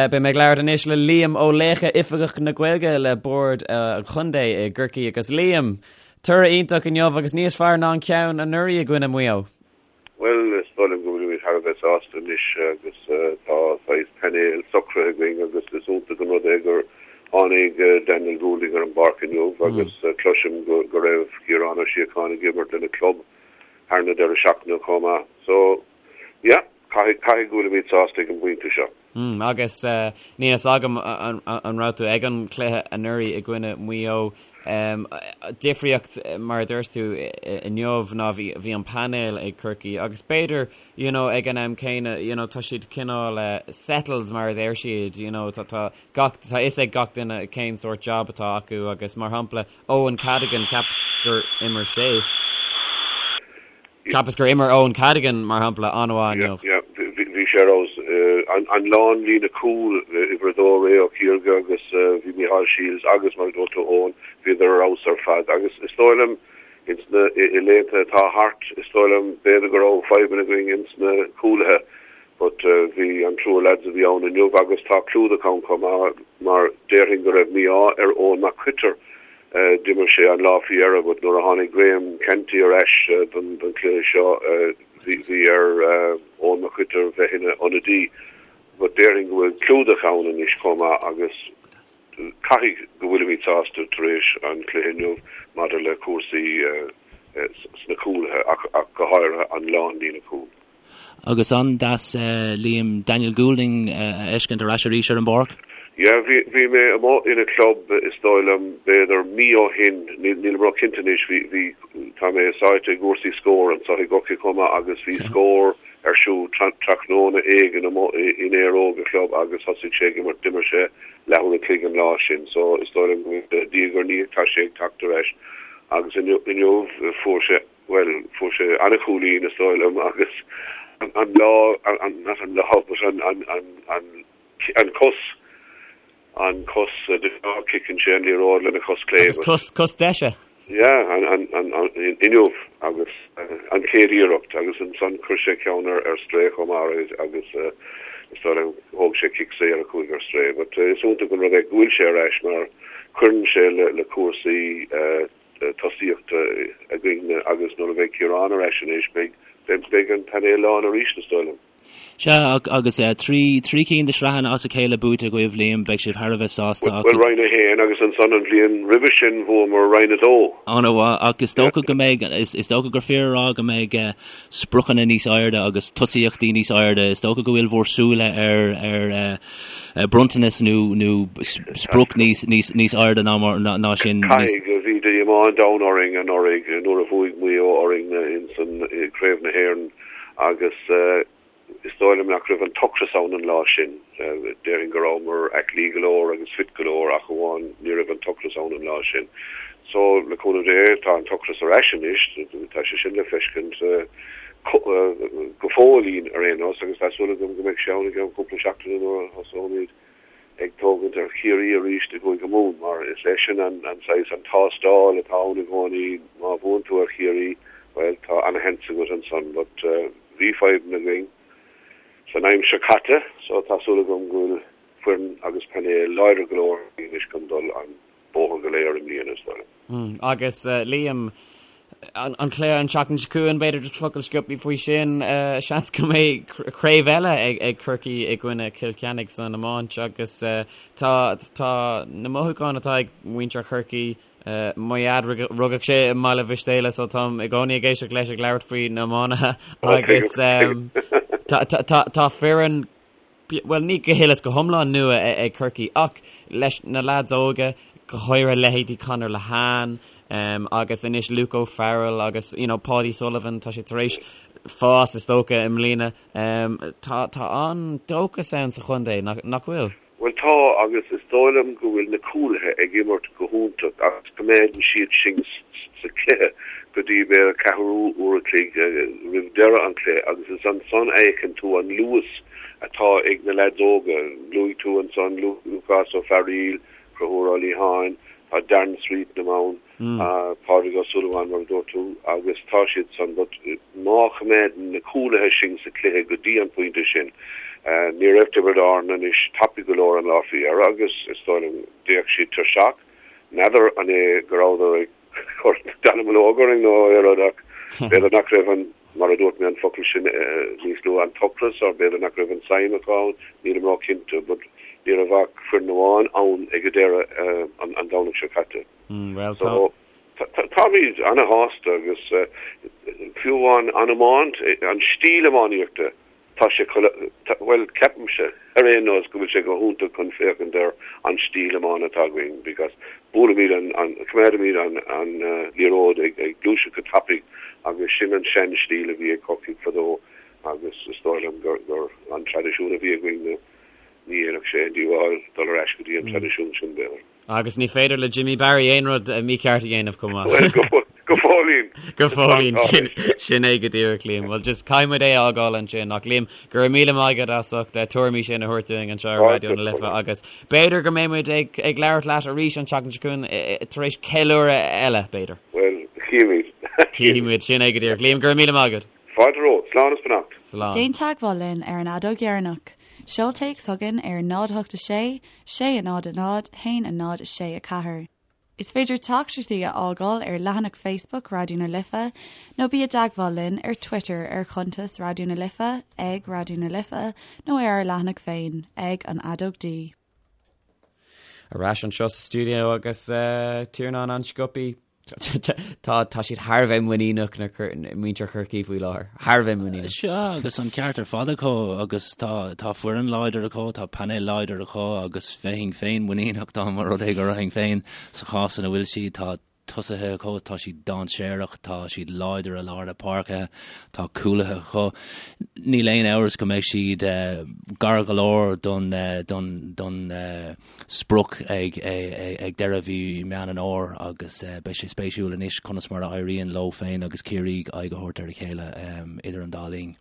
Beidh mé ag labhairt anois le Liam Ó Laochdha, Oifigeach na Gaeilge le Bord an Chontae i gCorcaigh agus Liam, toradh iontach inniu agus níos fearr ná an ceann anuraidh i gcoinne Mhaigh Eo. Bhuel, is dóigh liom go bhfuilimid thar a bheith sásta anois agus tá saghas painéal socraithe againn agus is iontach an rud é gur tháinig Daniel Goulding ar an bpáirc inniu agus cloisim go raibh Ciarán Ó Síocháin ag imirt lena club thar na deireadh seachtaine chomh maith. So, yeah, caithfidh, caithfidh go bhfuilimid sásta ag an bpointe seo. Mm, agus níl fhios agam an raibh tú ag an chluiche anuraidh i gcoinne Mhaigh Eo. Difríocht, mar a dúirt tú inniu, ná bhí an painéal ag Corcaigh agus b'fhéidir, you know, ag an am céanna, you know, tá siad cineál settled mar a deir siad, you know, tá tá gach, tá fhios ag gach duine cén sórt job atá acu agus mar shampla Eoin Cadogan, cheapas gur imir sé. Cheapas gur imir Eoin Cadogan, mar shampla, an-mhaith inniu. Yeah, bhí sé ar fheabhas. An lánlíne cúil, uimhir a dó Ray Ó Ciarga agus bhí Micheál Shields agus mar a dúirt tú Eoin, bhíodar ar fheabhas ar fad. Agus is dóigh liom ins na, i laethanta atá thart, is dóigh liom b'fhéidir go raibh fadhbanna againn ins na cúlaithe but bhí an triúr lads a bhí ann inniu agus tá clúdach ann chomh maith mar déarfainn go raibh mí-ádh ar Eoin Mac Coitir D'imir sé an lá faoi dheireadh but nuair a tháinig Graham Canty ar ais don chluiche seo bhí ar Eoin Mac Coitir bheith ina ionadaí. But déarfainn go bhfuil clúdach ann anois chomh maith agus caithfidh go bhfuilimid sásta tar éis an chluiche inniu maidir le cúrsaí sna cúlaithe ach go háirithe an lánlíne cúil. Agus an-deas Liam, Daniel Goulding a fheiscint ar ais arís ar an bpáirc. Yeah, bhí, bhí mé amuigh ina club is dóigh liom b'fhéidir mí ó shin, níl, nílim ró-chinnte anois, bhí, bhí, tá mé sáite i gcúrsaí Scór anseo i gCorcaigh chomh maith agus bhí Scór ar siúl tráthnóna éigin amuigh in Éire Óg a chlub agus thosaigh sé ag imirt, d'imir sé leathuair an chloig an lá sin so is dóigh liom go bhfuil, diaidh ar ndiaidh tá sé ag teacht ar ais agus inniu, inniu fuair sé bhuel, fuair sé an-chúilín, is dóigh liom, agus an lá, not an lá, but an, an, an, an, an cos, an cos, de ghnáth ciceann sé an liathróid lena chos clé. Agus cos, cos deise. Yeah, an, an, an, an, inniu, agus an chéad iarracht, agus ansan chuir sé ceann ar, ar strae chomh maith agus is dóigh liom thóg sé cic saor a chuaigh ar strae. But is iontach an rud é go bhfuil sé ar ais mar cuireann sé le, le cúrsaí tosaíochta againn. Ciarán ar ais anois, beidh, beidh an painéal lán arís, is dóigh liom. Sea, agus 3 cinn de shraitheanna as a chéile buaite agaibh, Liam, beidh sibh thar a bheith sásta ach. Bhuel, Roinn 1 agus ansan an bhliain roimhe sin bhuamar Roinn 2. An-mhaith, ach is dócha go mbeidh, is dócha gur fíor a rá go mbeidh spriocanna níos airde agus tosaíochtaí níos airde. Is dócha go bhfuil bhur súile ar ar bronntanas nó nó sprioc níos níos níos airde ná mar ná sin. Caithfidh, bhí díomá an domhain orainn anuraidh nuair a bhuaigh Maigh Eo orainn insan Craobh na hÉireann. Agus is dóigh liom nach raibh an t-ocras ann an lá sin. Déarfainn go rabhamar aclaí go leor agus fit go leor ach amháin ní raibh an t-ocras ann an lá sin. So, le cúnamh Dé, tá an t-ocras ar ais anois, tá sé sin le feiscint go fóillín ar aon nós agus tá súil agam go mbeidh sé ann i gceann cúpla seachtaine nuair a thosóimid ag tógaint ar Chiarraí arís i gCúige Mumhan mar is é sin an saghas, an tástáil atá ann i gcónaí, má bhuann tú ar Chiarraí, bhuel, tá ana-sheans agat ansan. But bhí fadhbanna againn san aimsir chaite so tá súil agam go bhfuil foireann agus painéal láidir go leor againn anois chun dul an bóthar go léir i mbliana, is dóigh liom. Agus Liam, an cluiche an tseachtain seo chugainn, b'fhéidir just focal sciobtha faoi sin, seans go mbeidh craobh eile ag Corcaigh i gcoinne Chill Chainnigh san iomáint agus tá tá na mothúcháin atá ag muintir Chorcaí, mo dhaid rugadh sé i mBaile Mhistéala so táim i gcónaí ag éisteacht leis ag labhairt faoi na iománaithe agus tá foireann bhuel, ní go huile is go hiomlán nua ag Corcaigh ach leis na leaids óga, go háirithe leithéidí Conor Lehane agus anois Luke O'Farrell agus you know Paudie Sullivan, tá sé tar éis fás is dócha i mbliana. Tá tá an-dóchas ann sa chontae, nach bhfuil? Bhuel tá agus is dóigh liom go bhfuil na cúlaithe ag imirt go hiontach agus coimeádann siad sinn sa chluiche go dtí b'fhéidir ceathrú uair a chloig roimh deireadh an chluiche agus is ansan a fheiceann tú an luas atá ag na leaids óga. Luaigh tú ansan Lúcás Ó Fearaíl, Conchúr Ó Liatháin, tá Darren Sweetnam ann. Pádraig Ó Súilleabháin, mar a dúirt tú, agus tá siad san, but má choimeádann na cúlaithe sinn sa chluiche go dtí an pointe sin, ní raibh Tiobraid Árann anois tapaidh go leor an lá faoi dheireadh agus is dóigh liom d'fhéach siad tuirseach. N'fheadar an é go rabhadar ag cur dallamullóg orainn nó aon rud ach b'fhéidir nach raibh an, mar a dúirt mé an focal sin níos luaithe, an t-ocras or b'fhéidir nach raibh an tsuim acu ann, nílim ró-chinnte but ní raibh ach foireann amháin ann ag an deireadh an Domhnach seo caite. Bhuel, tá. Táimid ana-shásta agus fiú amháin an iomáint, an stíl iománaíochta, tá sé, bhuel, ceapaimse ar aon nós go bhfuil sé go hiontach chun féachaint ar an stíl iomána atá againn because buailimid an, coimeádaimid an liathróid ag gluaiseacht go tapaidh agus sin an sean-stíl a bhí ag Corcaigh fadó agus is dóigh liom gur an traidisiún a bhí againn ní dhéanfadh sé aon díobháil dul ar ais go dtí an traidisiún sin, b'fhéidir. Agus ní féidir le Jimmy Barry aon rud mícheart a dhéanamh chomh maith. Bhuel, go fóillín. Go fóillín, sin é go díreach, Liam. Bhuel, just caithfidh muid é a fhágáil ansin. Ach Liam, go raibh míle maith agat as ucht tuairimí sin a thabhairt dúinn anseo ar Raidió na Life agus b'fhéidir go mbeidh muid ag ag labhairt leat arís an tseachtain seo chugainn tar éis ceiliúradh eile, b'fhéidir. Bhuel, chífimid. Chífimid, sin é go díreach. Liam, go raibh míle maith agat. Fáilte romhat. Slán is beannacht. Slán. Déan teagmháil linn ar an fheadóg dheireanach. Seol téacs chugainn ar 0 8 6 6 0 0 1 0 6 4. Is féidir teachtaireachtaí a fhágáil ar leathanach Facebook Raidió na Life nó bí i dteagmháil linn ar Twitter ar chuntas Raidió na Life ag Raidió na Life nó ar ár leathanach féin ag An Fheadóg D. Ar ais anseo sa stiúideo agus Tiarnán an-sciobtha. Tá tá siad thar a bheith muiníneach na muintir Chorcaí faoi láthair. Thar a bheith muiníneach. Sea, agus an ceart ar fad acu agus tá tá foireann láidir acu, tá painéal láidir acu agus bheinn féin muiníneach dá mba rud é go raibh féin sa chás ina bhfuil siad. Tá tosaithe acu, tá siad dainséarach, tá siad láidir i lár na páirce, tá cúlaithe acu. Níl aon amhras go mbeidh siad gar go leor don don don sprioc ag deireadh mhí Meán an Fhómhair agus beidh sé spéisiúil anois conas mar a éiríonn leo féin agus Ciarraí aghaidh a thabhairt ar a chéile idir an dá linn.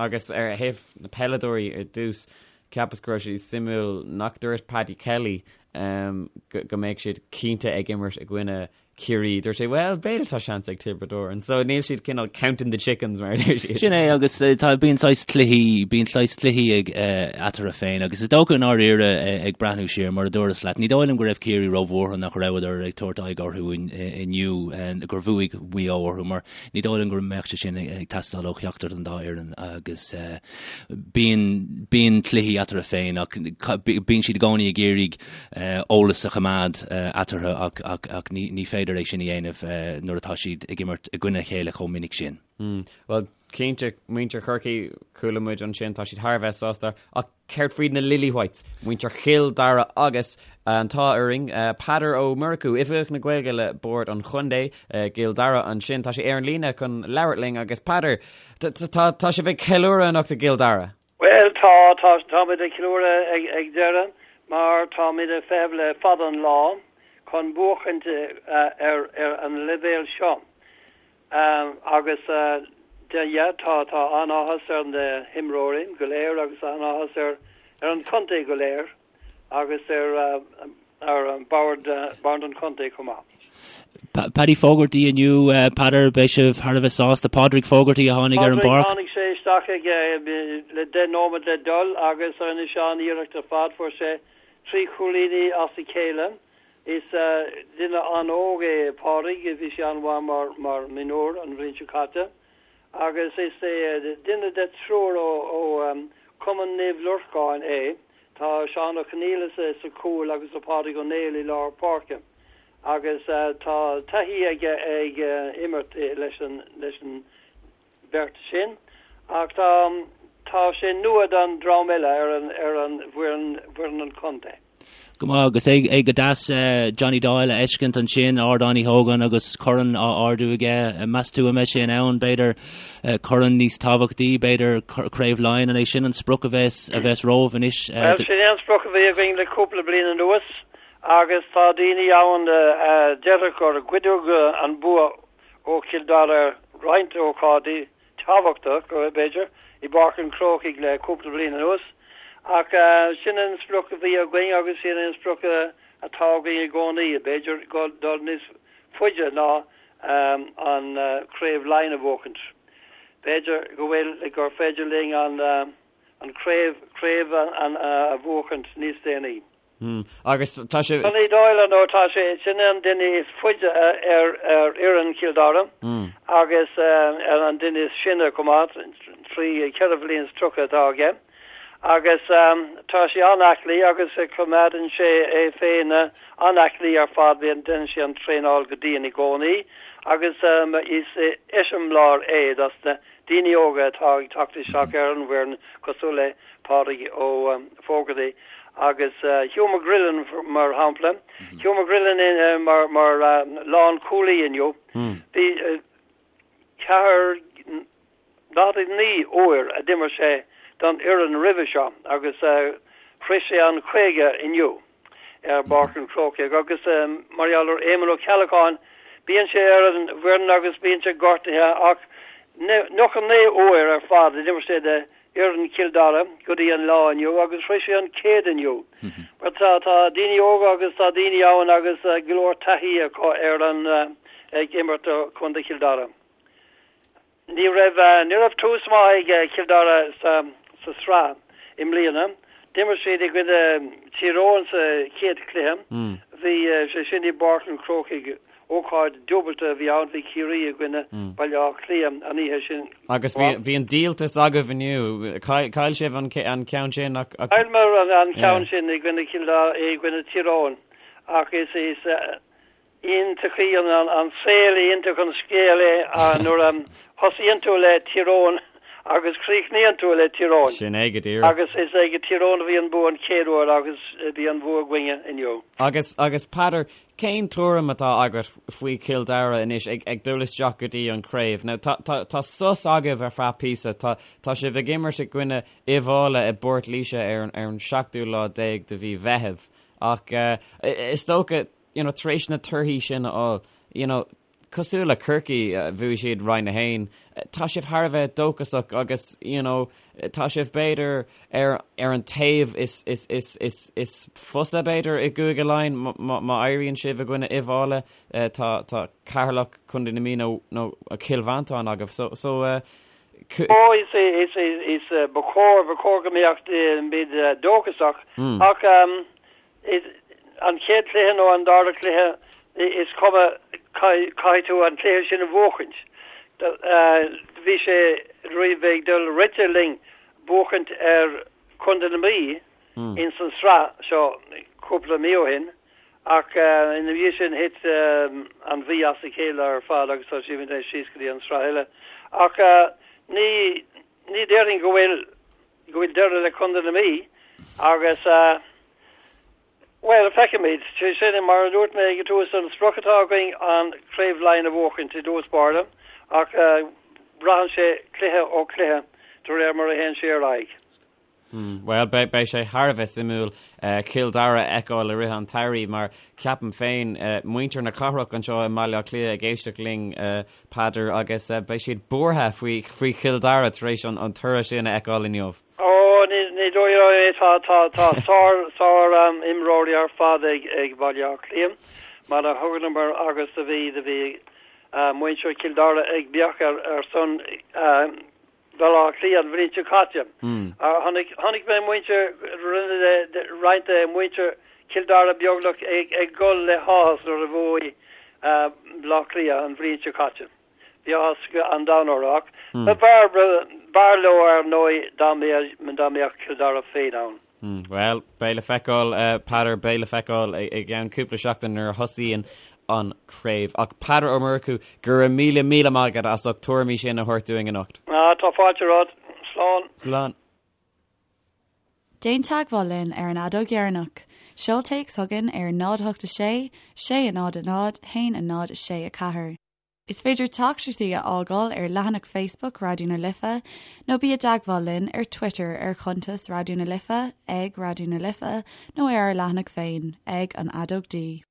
Agus ar thaobh na peileadóirí ar dtús, cheapas go raibh sé suimiúil nach dúirt Paddy Kelly go mbeadh siad cinnte ag imirt i gcoinne. Ciarraí, dúirt sé, well, b'fhéidir tá seans ag Tiobraid Árann. So níl siad cineál counting the chickens mar a deir siad. Sin é agus tá bíonn saghas cluichí, bíonn saghas cluichí ag eatarthu féin agus is dócha i ndáiríre ag breathnú siar mar a dúras leat, ní dóigh liom go raibh Ciarraí róbhuartha nach rabhadar ag tabhairt aghaidh orthu inniu, gur bhuaigh Maigh Eo orthu mar ní dóigh liom go mbeadh sé sin ag teastáil ó cheachtar den dá fhoireann agus bíonn, bíonn cluichí eatarthu féin ach bíonn siad i gcónaí ag iarraidh eolas a choimeád eatarthu ach ní féidir é sin a dhéanamh nuair atá siad ag imirt i gcoinne a chéile chomh minic sin. Bhuel, cinnte, muintir Chorcaí, chuala muid ansin, tá siad thar a bheith sásta, ach céard faoi na Lily Whites, muintir Chill Dara agus an t-ádh orainn, Peadar Ó Murchú, Oifigeach na Gaeilge le Bord an Chontae i gCill Dara ansin, tá sé ar an líne chun labhairt linn agus Peadar, tá sibh ag ceiliúradh anocht i gCill Dara! Bhuel, tá, tá, táimid ag ceiliúradh ag, ag deireadh mar táimid ag feitheamh le fada an lá chun buachaint ar, ar an leibhéal seo. Agus de, yeah, tá, tá an-áthas ar na himreoirí go léir agus an-áthas ar, ar an chontae go léir. agus ar ar bord bord an chontae chomh maith. Paddy Fogarty inniu, Peadar, beidh sibh thar a bheith sásta. Pádraig Fogarty a tháinig ar an bpáirc. Tháinig sé isteach ag le 10 nóiméad le dul agus rinne sé an-iarracht ar fad. Fuair sé trí chúilíní as a chéile. Is duine an-óg é Pádraig, bhí sé an-mhaith mar mar mionúr an bhliain seo caite agus is é duine de triúr ó ó Cumann Naomh Lorcáin é. Tá Seán Ó Conghaile sa chúl agus tá Pádraig Ó Néill i lár páirce agus tá taithí aige ag imirt leis an leis an bheirt sin ach tá tá sé nua don dream eile ar an ar an bhfoireann bhfoireann an chontae. Go maith agus é go deas Johnny Doyle a fheiscint ansin, Ardán Uí Hógáin agus corn á ardú aige. Meas tú an mbeidh sé in ann, b'fhéidir, corn níos tábhachtaí, b'fhéidir Craobh Laighean, an é sin an sprioc a bheas a bheas romhaibh anois? Bhuel, sin é an sprioc a bhí againn le cúpla bliain anuas agus tá daoine ann a déarfadh gur goideadh an bua ó Chill Dara roinnt ócáidí tábhachtach, b'fhéidir, i bPáirc an Chrócaigh le cúpla bliain anuas. Ach sin an sprioc a bhí againn agus sin an sprioc atá againn i gcónaí, b'fhéidir dul níos faide ná an Craobh Laighean a bhuachaint. B'fhéidir go bhfuil, gur féidir linn an craobh, craobh a bhuachaint níos déanaí. Hmm. Agus tá sé. Johnny Doyle nó tá sé sin an duine is faide ar ar fhoireann Chill Dara agus an duine is sine chomh maith, 3 4 bhliain is 30 atá aige. Agus tá sé an-aclaí agus coimeádann sé é féin an-aclaí ar fad, bíonn déanann sé an traenáil go dian i gcónaí agus is eiseamláir é dos na daoine óga atá ag teacht isteach ar an bhfoireann cosúil le Pádraig Ó Fógartaigh agus Hugh McGrillen mar shampla. Hugh McGrillen mar mar lánchúlaí inniu. Bhí 49 uair a d'imir sé don fhoireann roimhe seo agus shroich sé an 50 inniu. ar bPáirc an Chrócaigh agus mar gheall ar Éamonn Ó Ceallacháin, bíonn sé ar an bhfoireann agus bíonn sé gortaithe ach 99 uair ar fad a d'imir sé do fhoireann Chill Dara go dtí an lá inniu agus shroich sé an 100 inniu. Mar tá tá daoine óga agus tá daoine ann agus go leor taithí acu ar an ag imirt do Chontae Chill Dara. Ní raibh ní raibh tús maith ag Cill Dara sa sa sraith i mbliana. D'imir siad i gcoinne Tír Eoghain sa chéad chluiche. Bhí sé sin i bPáirc an Chrócaigh. Ócáid dúbailte a bhí ann, bhí Ciarraí i gcoinne Baile Átha Cliath an oíche sin. Agus bhí bhí an díoltas agaibh inniu. Chaill sibh an an ceann sin ach ach Chailleamar an an ceann sin i gcoinne Cill Dara i gcoinne Tír Eoghain ach is is Iontach an saol, iontach an scéal é nuair a thosaíonn tú le Tír Eoghain agus críochnaíonn tú le Tír Eoghain. Sin é go díreach. Agus is ag Tír Eoghain a bhí an bua an chéad uair agus bhí an bua againne inniu. Agus, agus Peadar, cén tuairim atá agat faoi Chill Dara anois ag, ag dul isteach go dtí an craobh? Now tá, tá, tá sos agaibh ar feadh píosa, tá, tá sibh ag imirt i gcoinne Uíbh Fhailí i bPort Laoise ar an, ar an seachtú lá déag de mhí Mheithimh. Ach is dócha, you know, tar éis na torthaí sin a fháil, you know, Cosúil le Corcaigh, bhuaigh siad Roinn 1. Tá sibh thar a bheith dóchasach agus, you know, tá sibh b'fhéidir ar ar an taobh is is is is is fusa b'fhéidir i gCúige Laighean má má éiríonn sibh i gcoinne Uíbh Fhailí. Tá tá Ceatharlach, Contae na Mí nó nó Cill Mhantáin agaibh. So so Ó is is is ba chóir ba chóir go mbeadh muid dóchasach ach an chéad chluiche nó an dara cluiche is cuma caithfidh tú an cluiche sin a bhuachaint. Bhí sé roimh ag dul rite linn buachaint ar Chontae na Mí ins an sraith seo cúpla mí ó shin ach ina dhiaidh sin thit an Mhí as a chéile ar fad agus tá siad anois síos go dtí an sraith eile. Ach ní ní déarfainn go bhfuil go bhfuil deireadh le Contae na Mí agus bhuel, feicfimid. Sé sin, mar a dúirt mé ag an tús, an sprioc atá againn an Craobh Laighean a bhuachaint i dtús báire ach braitheann sé cluiche ó chluiche de réir mar a théann sé ar aghaidh. Bhuel, beidh sé thar a bheith suimiúil Cill Dara a fheiceáil i rith an tsamhraidh mar ceapaim féin, muintir na cathrach anseo i mBaile Átha Cliath ag éisteacht linn, Peadar, agus beidh siad buartha faoi faoi Chill Dara tar éis an toradh sin a fheiceáil inniu. Ó, ní dóigh liom é. Tá tá tá sár sár imreoirí ar fad ag ag Baile Átha Cliath mar a thuganamar agus do bhí do bhí muintir Chill Dara ag beach ar ar son Bhaile Átha Cliath an bhliain seo caite. Chonaic chonaic mé muintir rinne roinnt de mhuintir Chill Dara beagnach ag ag gol le háthas nuair a bhuaigh Baile Átha Cliath an bhliain seo caite. Bhí áthas an domhain orthu ach b'fhearr b'fhearr leo ar ndóigh dá mbeadh dá mbeadh Cill Dara féin ann. Bhuel, beidh le feiceáil, Peadar, beidh le feiceáil i gceann cúpla seachtain nuair a thosaíonn an craobh. Ach Peadar Ó Murchú, go raibh míle míle maith agat as ucht tuairimí sin a thabhairt dúinn anocht. Ah, tá fáilte romhat. Slán. Slán. Déan teagmháil linn ar an fheadóg dheireanach. Seol téacs chugainn ar 0 8 6 6 0 0 1 0 6 4. Is féidir teachtaireachtaí a fhágáil ar leathanach Facebook Raidió na Life nó bí i dteagmháil linn ar Twitter ar chuntas Raidió na Life, ag Raidió na Life, nó ar ár leathanach féin, ag An Fheadóg D.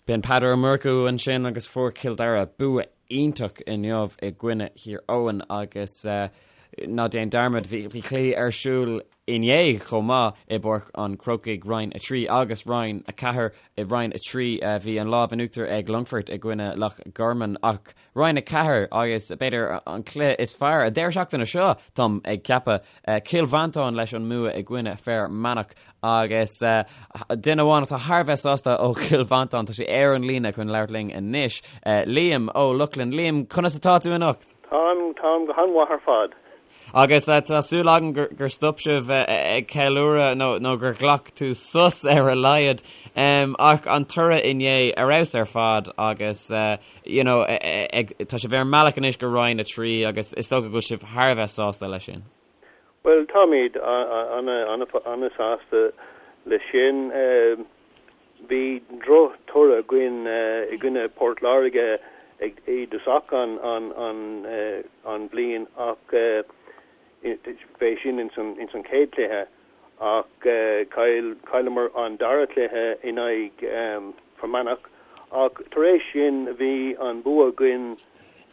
B'in Peadar Ó Murchú ansin agus fuair Cill Dara bua iontach inniu i gcoinne Thír Eoghain agus ná déan dearmad bhí cluichí ar siúl inné chomh maith i bPáirc an Chrócaigh, Roinn 3 agus Roinn 4. I Roinn 3 bhí an lámh in uachtar ag Longfort i gcoinne Loch Garman ach Roinn 4 agus b'fhéidir an cluiche is fearr an deireadh seachtaine seo, táim ag ceapadh, Cill Mhantáin leis an mbua i gcoinne Fear Manach agus duine amháin atá thar a bheith sásta ó Chill Mhantáin, tá sé ar an líne chun labhairt linn anois, Liam Ó Lochlainn. Liam, conas atá tú anocht? Táim, táim go han-mhaith ar fad. Agus tá súil agam gur stop sibh ag ceiliúradh nó gur ghlac tú sos ar a laghad. Ach an toradh inné ar fheabhas ar fad agus you know tá sibh ar an mbealach anois go Roinn 3 agus is dócha go bhfuil sibh thar a bheith sásta leis sin. Bhuel, táimid an-sásta leis sin. Bhí droch-toradh againn i gcoinne Port Láirge ag i dtosach an an bhliain ach b'é sin ins an ins an chéad chluiche ach chaill chailleamar an dara cluiche in aghaidh Fear Manach ach tar éis sin bhí an bua againn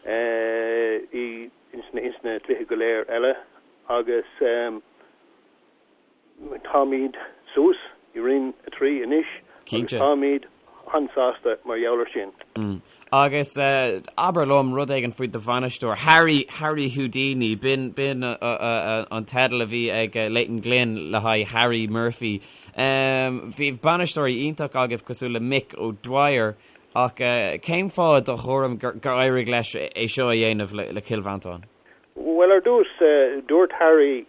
i ins na ins na cluichí go léir eile agus Táimid suas i Roinn 3 anois agus táimid an-sásta mar gheall air sin. Agus abair liom rud éigin faoi do bhainisteoir, Harry, Harry Houdini, b'in, b'in an teideal a bhí ag Leighton Glynn le haghaidh Harry Murphy. Bhí bainisteoirí iontach agaibh cosúil le Mick O'Dwyer ach cén fáth i do thuairim gur éirigh leis é seo a dhéanamh le Cill Mhantáin? Bhuel, ar dtús, dúirt Harry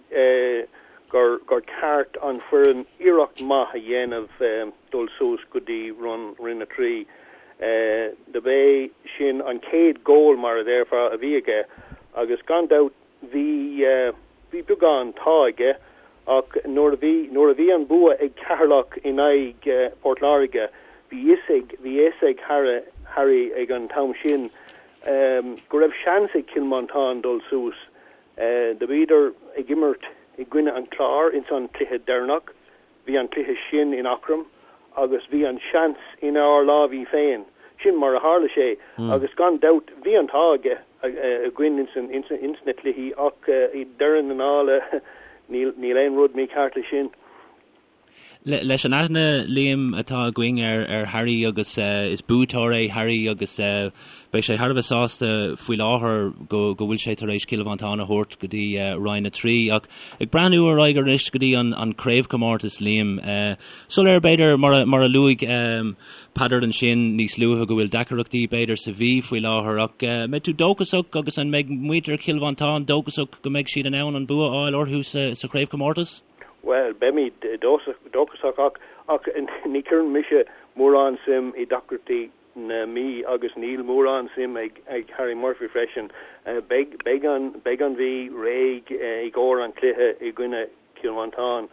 gur gur ceart an foireann iarracht maith a dhéanamh dul suas go dtí Roinn 3. Do b'é sin an chéad goal, mar a déarfá, a bhí aige agus gan dabht bhí bhí beagán t-ádh aige ach nuair a bhí nuair a bhí an bua ag Ceatharlach in aghaidh Port Láirge bhí fhios ag bhí fhios ag Harry ag an t-am sin go raibh seans ag Cill Mhantáin dul suas. Do bhíodar ag imirt i gcoinne an Chláir ins an cluiche deireanach. Bhí an cluiche sin in Eachroim agus bhí an seans inár lámhaí féin. Sin mar a tharla sé agus gan dabht bhí an t-ádh aige againn ins ins na cluichí ach i deireadh na dála níl níl aon rud mícheart leis sin. Leis an aithne, Liam, atá againn ar ar Harry agus is buaiteoir é Harry agus beidh sé thar a bheith sásta faoi láthair go go bhfuil sé tar éis Cill Mhantáin a thabhairt go dtí Roinn 3 ach ag breathnú ar aghaidh arís go dtí an an craobhchomórtas, Liam, soiléir b'fhéidir mar a mar a luaigh Peadar ansin níos luaithe go bhfuil deacaireachtaí b'fhéidir sa Mhí faoi láthair ach mbeidh tú dóchasach agus an mbeidh muintir Chill Mhantáin dóchasach go mbeidh siad in ann an bua a fháil orthu sa sa chraobhchomórtas? Bhuel, beimid dóchasach ach ach ní chuireann mise mórán suim i deacrachtaí na Mí agus níl mórán suim ag ag Harry Murphy freisin. Beidh beidh an beidh an Mhí réidh i gcomhair an chluiche i gcoinne Chill Mhantáin.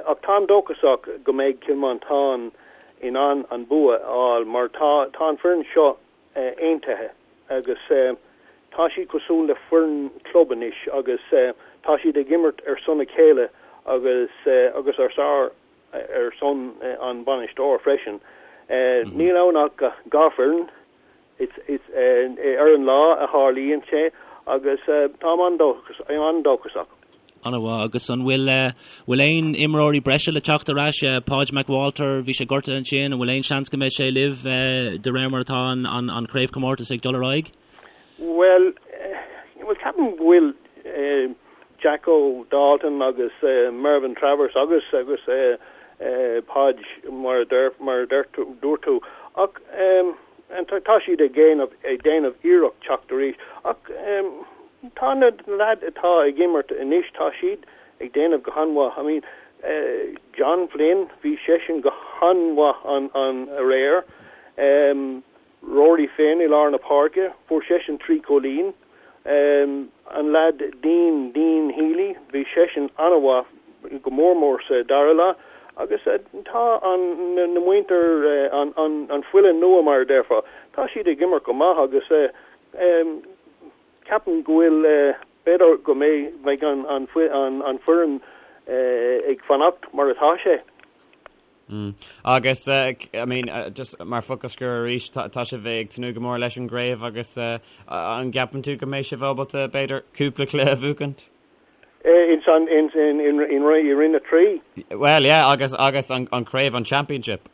Ach táim dóchasach go mbeidh Cill Mhantáin in ann an bua a fháil mar tá tá an foireann seo aontaithe agus tá siad cosúil le foireann club anois agus tá siad ag imirt ar son a chéile agus agus ar sár ar son an bainisteoir freisin. Níl ann ach 2 foireann. It's it's ar an lá a tharlaíonn sé agus táim an-dóchasach. An-mhaith. Agus an bhfuil bhfuil aon imreoirí breise le teacht ar ais? Podge McWalter, bhí sé gortaithe ansin, an bhfuil aon seans go mbeidh sé libh de réir mar atá an an an chraobhchomórtas ag dul ar aghaidh? Bhuel, bhuel ceapaim go bhfuil Jacko Dalton agus Mervyn Travers agus agus Podge mar a deir mar a deir tú dúirt tú ach tá siad ag déanamh ag déanamh iarracht teacht arís ach Tá na leaids atá ag imirt anois, tá siad ag déanamh go han-mhaith. I mean, John Flynn, bhí seisean go han-mhaith an an aréir. Rory Finn i lár na páirce, fuair seisean 3 chúilín. An leaid Dean, Dean Healy, bhí seisean an-mhaith, go mór mór sa dara leath. Agus tá an na muintir, an an an fuile nua mar a déarfá, tá siad ag imirt go maith agus Ceapaim go bhfuil, b'fhéidir go mbeidh an foireann ag fanacht mar atá sé. Agus, I mean, just mar focal scoir arís, tá sibh ag tnúth go mór leis an gcraobh agus an gceapann tú go mbeidh sibh ábalta, b'fhéidir, cúpla cluiche a bhuachaint? In san, in, in, in, in Roinn 3? Well, yeah, agus, agus an, an craobh, an championship.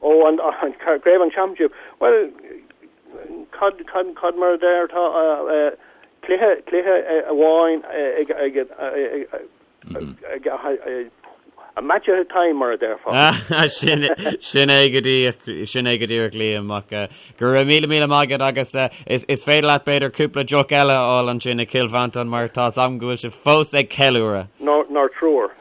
Ó, an, an craobh an championship. Bhuel, cad, cad, cad mar a deir tá cluiche, cluiche amháin ag, ag, ag, ag, ag, a match at a time mar a déarfá. Sin, sin é go díreach, sin é go díreach Liam ach go raibh míle míle maith agat agus is, is féidir leat b'fhéidir cúpla deoch eile a fháil ansin i Cill Mhantáin mar tá 's agam go bhfuil sibh fós ag ceiliúradh. Nár triúr.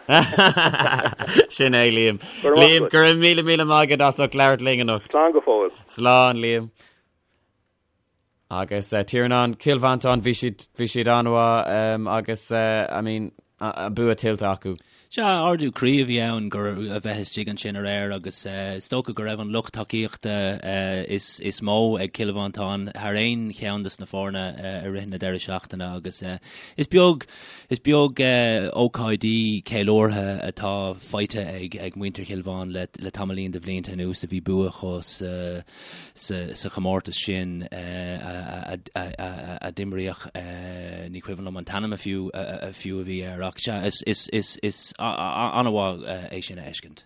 Sin é, Liam. Liam, go raibh míle míle maith agat as ucht labhairt linn anocht. Slán go fóill. Slán, Liam. Agus uh, Tiarnán, Cill Mhantáin, bhí siad bhí siad an-mhaith um, agus uh, I mean, an bua tuillte acu. Sea, ardú croí a bhí ann gur a bheith istigh ansin aréir agus uh, is dócha go raibh an lucht tacaíochta uh, is, is mó ag Cill Mhantáin thar aon cheann des na foirne uh, i rith na deireadh seachtaine agus uh, is beag Is beag ócáidí ceiliúrtha atá faighte ag muintir Chill Mhantáin le tamaillín de bhlianta anuas a bhí bua acu sa chomórtas sin a d'imríodh, ní cuimhin liom an t-ainm a fiú a bhí air ach sea, is an-mhaith é sin a fheiscint.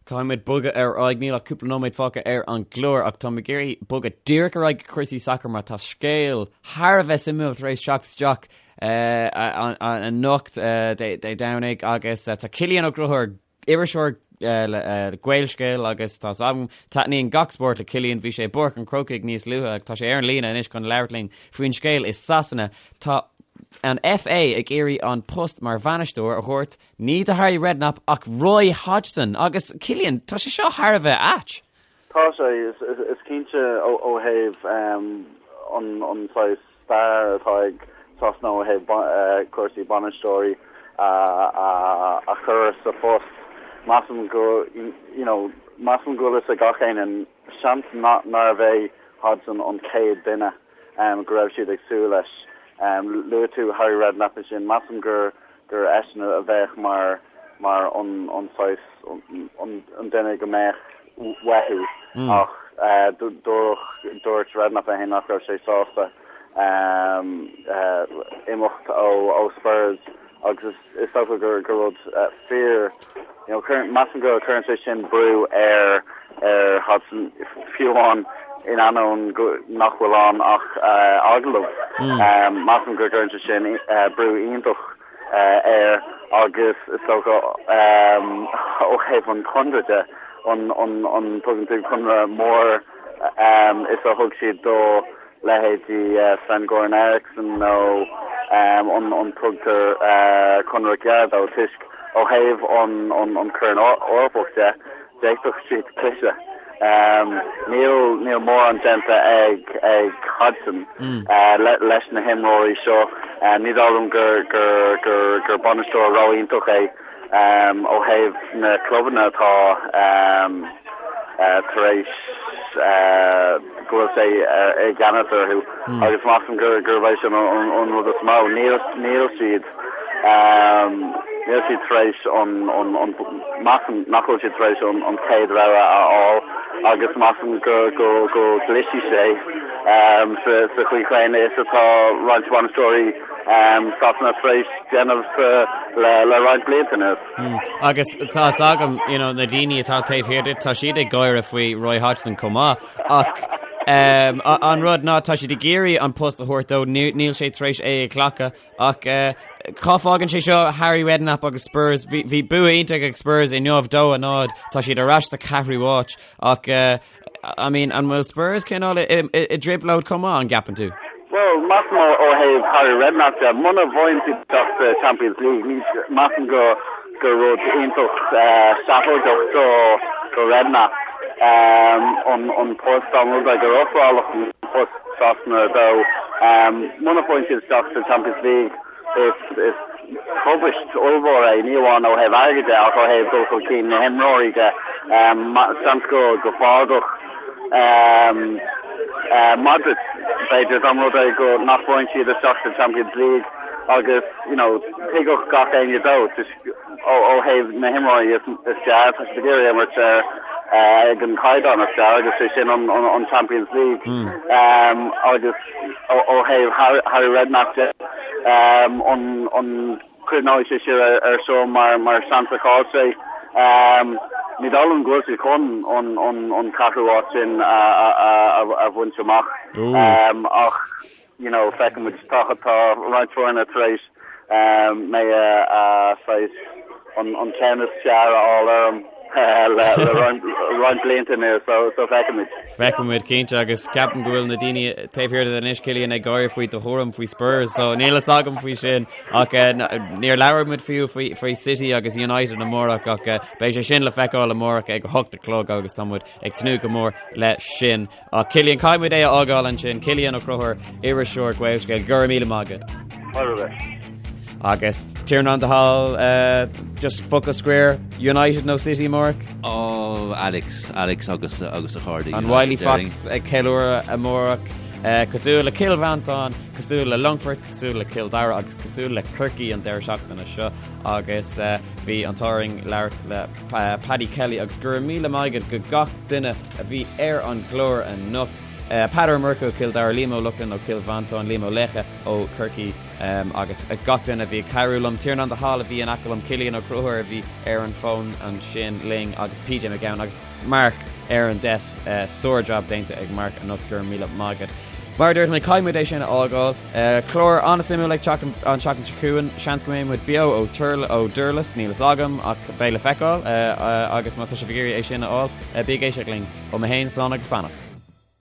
Caithfidh muid bogadh ar aghaidh, níl ach cúpla nóiméad fágtha ar an gclár ach táim ag iarraidh bogadh díreach ar aghaidh go cúrsaí sacair mar tá scéal thar a bheith suimiúil tar éis teacht isteach anocht Dé Domhnaigh agus tá Cillian Ó Conchúir, iriseoir le Gaelscéal agus tá 's agam, taitníonn gach spórt le Cillian, bhí sé i bPáirc an Chrócaigh níos luaithe ach tá sé ar an líne anois chun labhairt linn faoin scéal i Sasana. Tá an FA ag iarraidh an post mar bhainisteoir a thabhairt Ní do Harry Redknapp ach Roy Hodgson agus Cillian, tá sé seo thar a bheith ait. Tá sé, is cinnte ó thaobh an saghas stair atá ag Sasana ó thaobh cúrsaí bainisteoirí a chur sa phost. Measaim go, you know, measaim go bhfuil fhios ag gach éinne, seans nárbh é Hodgson an chéad duine go raibh siad ag súil leis. Luaigh tú Harry Redknapp ansin, measaim gur gur eisean a bheadh mar mar an an saghas an duine go mbeadh. uathu ach dúirt Redknapp é féin nach raibh sé sásta imeacht ó Spurs agus is dócha gur rud fíor you know measaim go cuireann sé sin brú ar ar Hodgson fiú amháin in ainneoin nach bhfuil ann ach agallamh. Measaim go gcuireann sé sin brú iontach air agus is dócha ó thaobh an chonradh de, an an tugann tú conradh mór is a thug siad do leithéidí Sven Goran Eriksson nó an tugtar conradh gearr dó toisc ó thaobh an Chorn Eorpach de, D'fhéadfadh siad cliseadh. Níl níl mórán déanta ag ag Hodgson leis na himreoirí seo. Ní dóigh liom gur gur gur gur bainisteoir ró-iontach é ó thaobh na clubanna atá tar éis go bhfuil sé i gceannas orthu agus measaim gur gurb é sin an rud is mó. Níl níl siad Níl siad tar éis an, measaim nach bhfuil siad tar éis an chéad rogha a fháil agus measaim go gclisfidh sé sa chaoi chéanna is atá roinnt bainisteoirí Sasana tar éis déanamh le roinnt blianta anuas. Agus tá fhios agam, you know, na daoine atá taobh thiar díot, tá siad ag gáire faoi Roy Hodgson chomh maith ach an rud ná tá siad ag iarraidh an post a thabhairt dó, níl sé tar éis é a ghlacadh Ach cá fágann sé seo Harry Redknapp agus Spurs? Bhí bua iontach ag Spurs inniu 2-0, tá siad ar ais sa ceathrú háit ach I mean, an bhfuil Spurs cineál i dtrioblóid chomh maith, an gceapann tú? Bhuel, measaim ó thaobh Harry Redknapp de, muna bhfaigheann siad isteach sa Champions League, ní measaim go gur rud iontach seafóideach do do Redknapp an post dá mba rud é gur ofráladh an post Sasana dó. Muna bhfaigheann siad isteach sa Champions League is tubaist ollmhór é, ní amháin ó thaobh airgid de ach ó thaobh dul chun cinn na himreoirí de. Seans go go bhfágfadh Modric, b'fhéidir, dá mba rud é go nach bhfaigheann siad isteach sa Champions League agus you know tuigfeadh gach éinne dó. Ó thaobh na himreoirí is fearr, tá siad ag iarraidh imirt ar ag an caighdeán is fearr agus sé sin an Champions League. Agus ó thaobh Harry Redknapp de, an cuimhneoidh sé siar ar seo mar seans a chaill sé? Ní dóigh liom go bhfuil siad chun an ceathrú háit sin a bhaint amach ach you know, feicfimid, tá tá roinnt foirne tar éis mé a saghas an ceann is fearr a fháil orm le roinnt blianta anuas, so so feicfimid. Feicfimid cinnte agus ceapaim go bhfuil na daoine taobh thiar de anois Cillian ag gáire faoi do thuairim faoi Spurs, so níl fhios agam faoi sin ach níor labhair muid fiú faoi faoi City agus United amárach ach beidh sé sin le feiceáil amárach ag 8 a chlog agus tá muid ag tnúth go mór leis sin. Ach Cillian, caithfidh muid é a fhágáil ansin. Cillian Ó Conchúir, iriseoir Gaelscéal, go raibh míle maith agat. Agus Tiarnán de Hál, just focal scoir, United nó City amárach? Oh, Alex, Alex agus agus a chairde. An Wily Fox ag ceiliúradh amárach, cosúil le Cill Mhantáin, cosúil le Longfort, cosúil le Cill Dara agus cosúil le Corcaigh an deireadh seachtaine seo agus bhí an t-ádh orainn labhairt le Paddy Kelly agus go raibh míle maith agat go gach duine a bhí ar an gclár anocht. Peadar Ó Murchú ó Chill Dara, Liam Ó Lochlainn ó Chill Mhantáin, Liam Ó Laochdha ó Chorcaigh agus gach duine a bhí ag cabhrú liom, Tiarnán de Hál a bhí in aice liom, Cillian Ó Conchúir a bhí ar an bhfón ansin linn agus PJ Mac Gabhann agus Mark ar an desk. Sár-jab déanta ag Mark anocht, go raibh míle maith agat. Mar a dúirt mé, caithfidh muid é sin a fhágáil. Clár an-suimiúil ag teacht an tseachtain seo chugainn. Seans go mbeidh muid beo ó ó Durlas, níl fhios agam ach beidh le feiceáil agus má tá sibh ag iarraidh é sin a fháil, bí ag éisteacht linn. Ó mé féin, slán agus beannacht.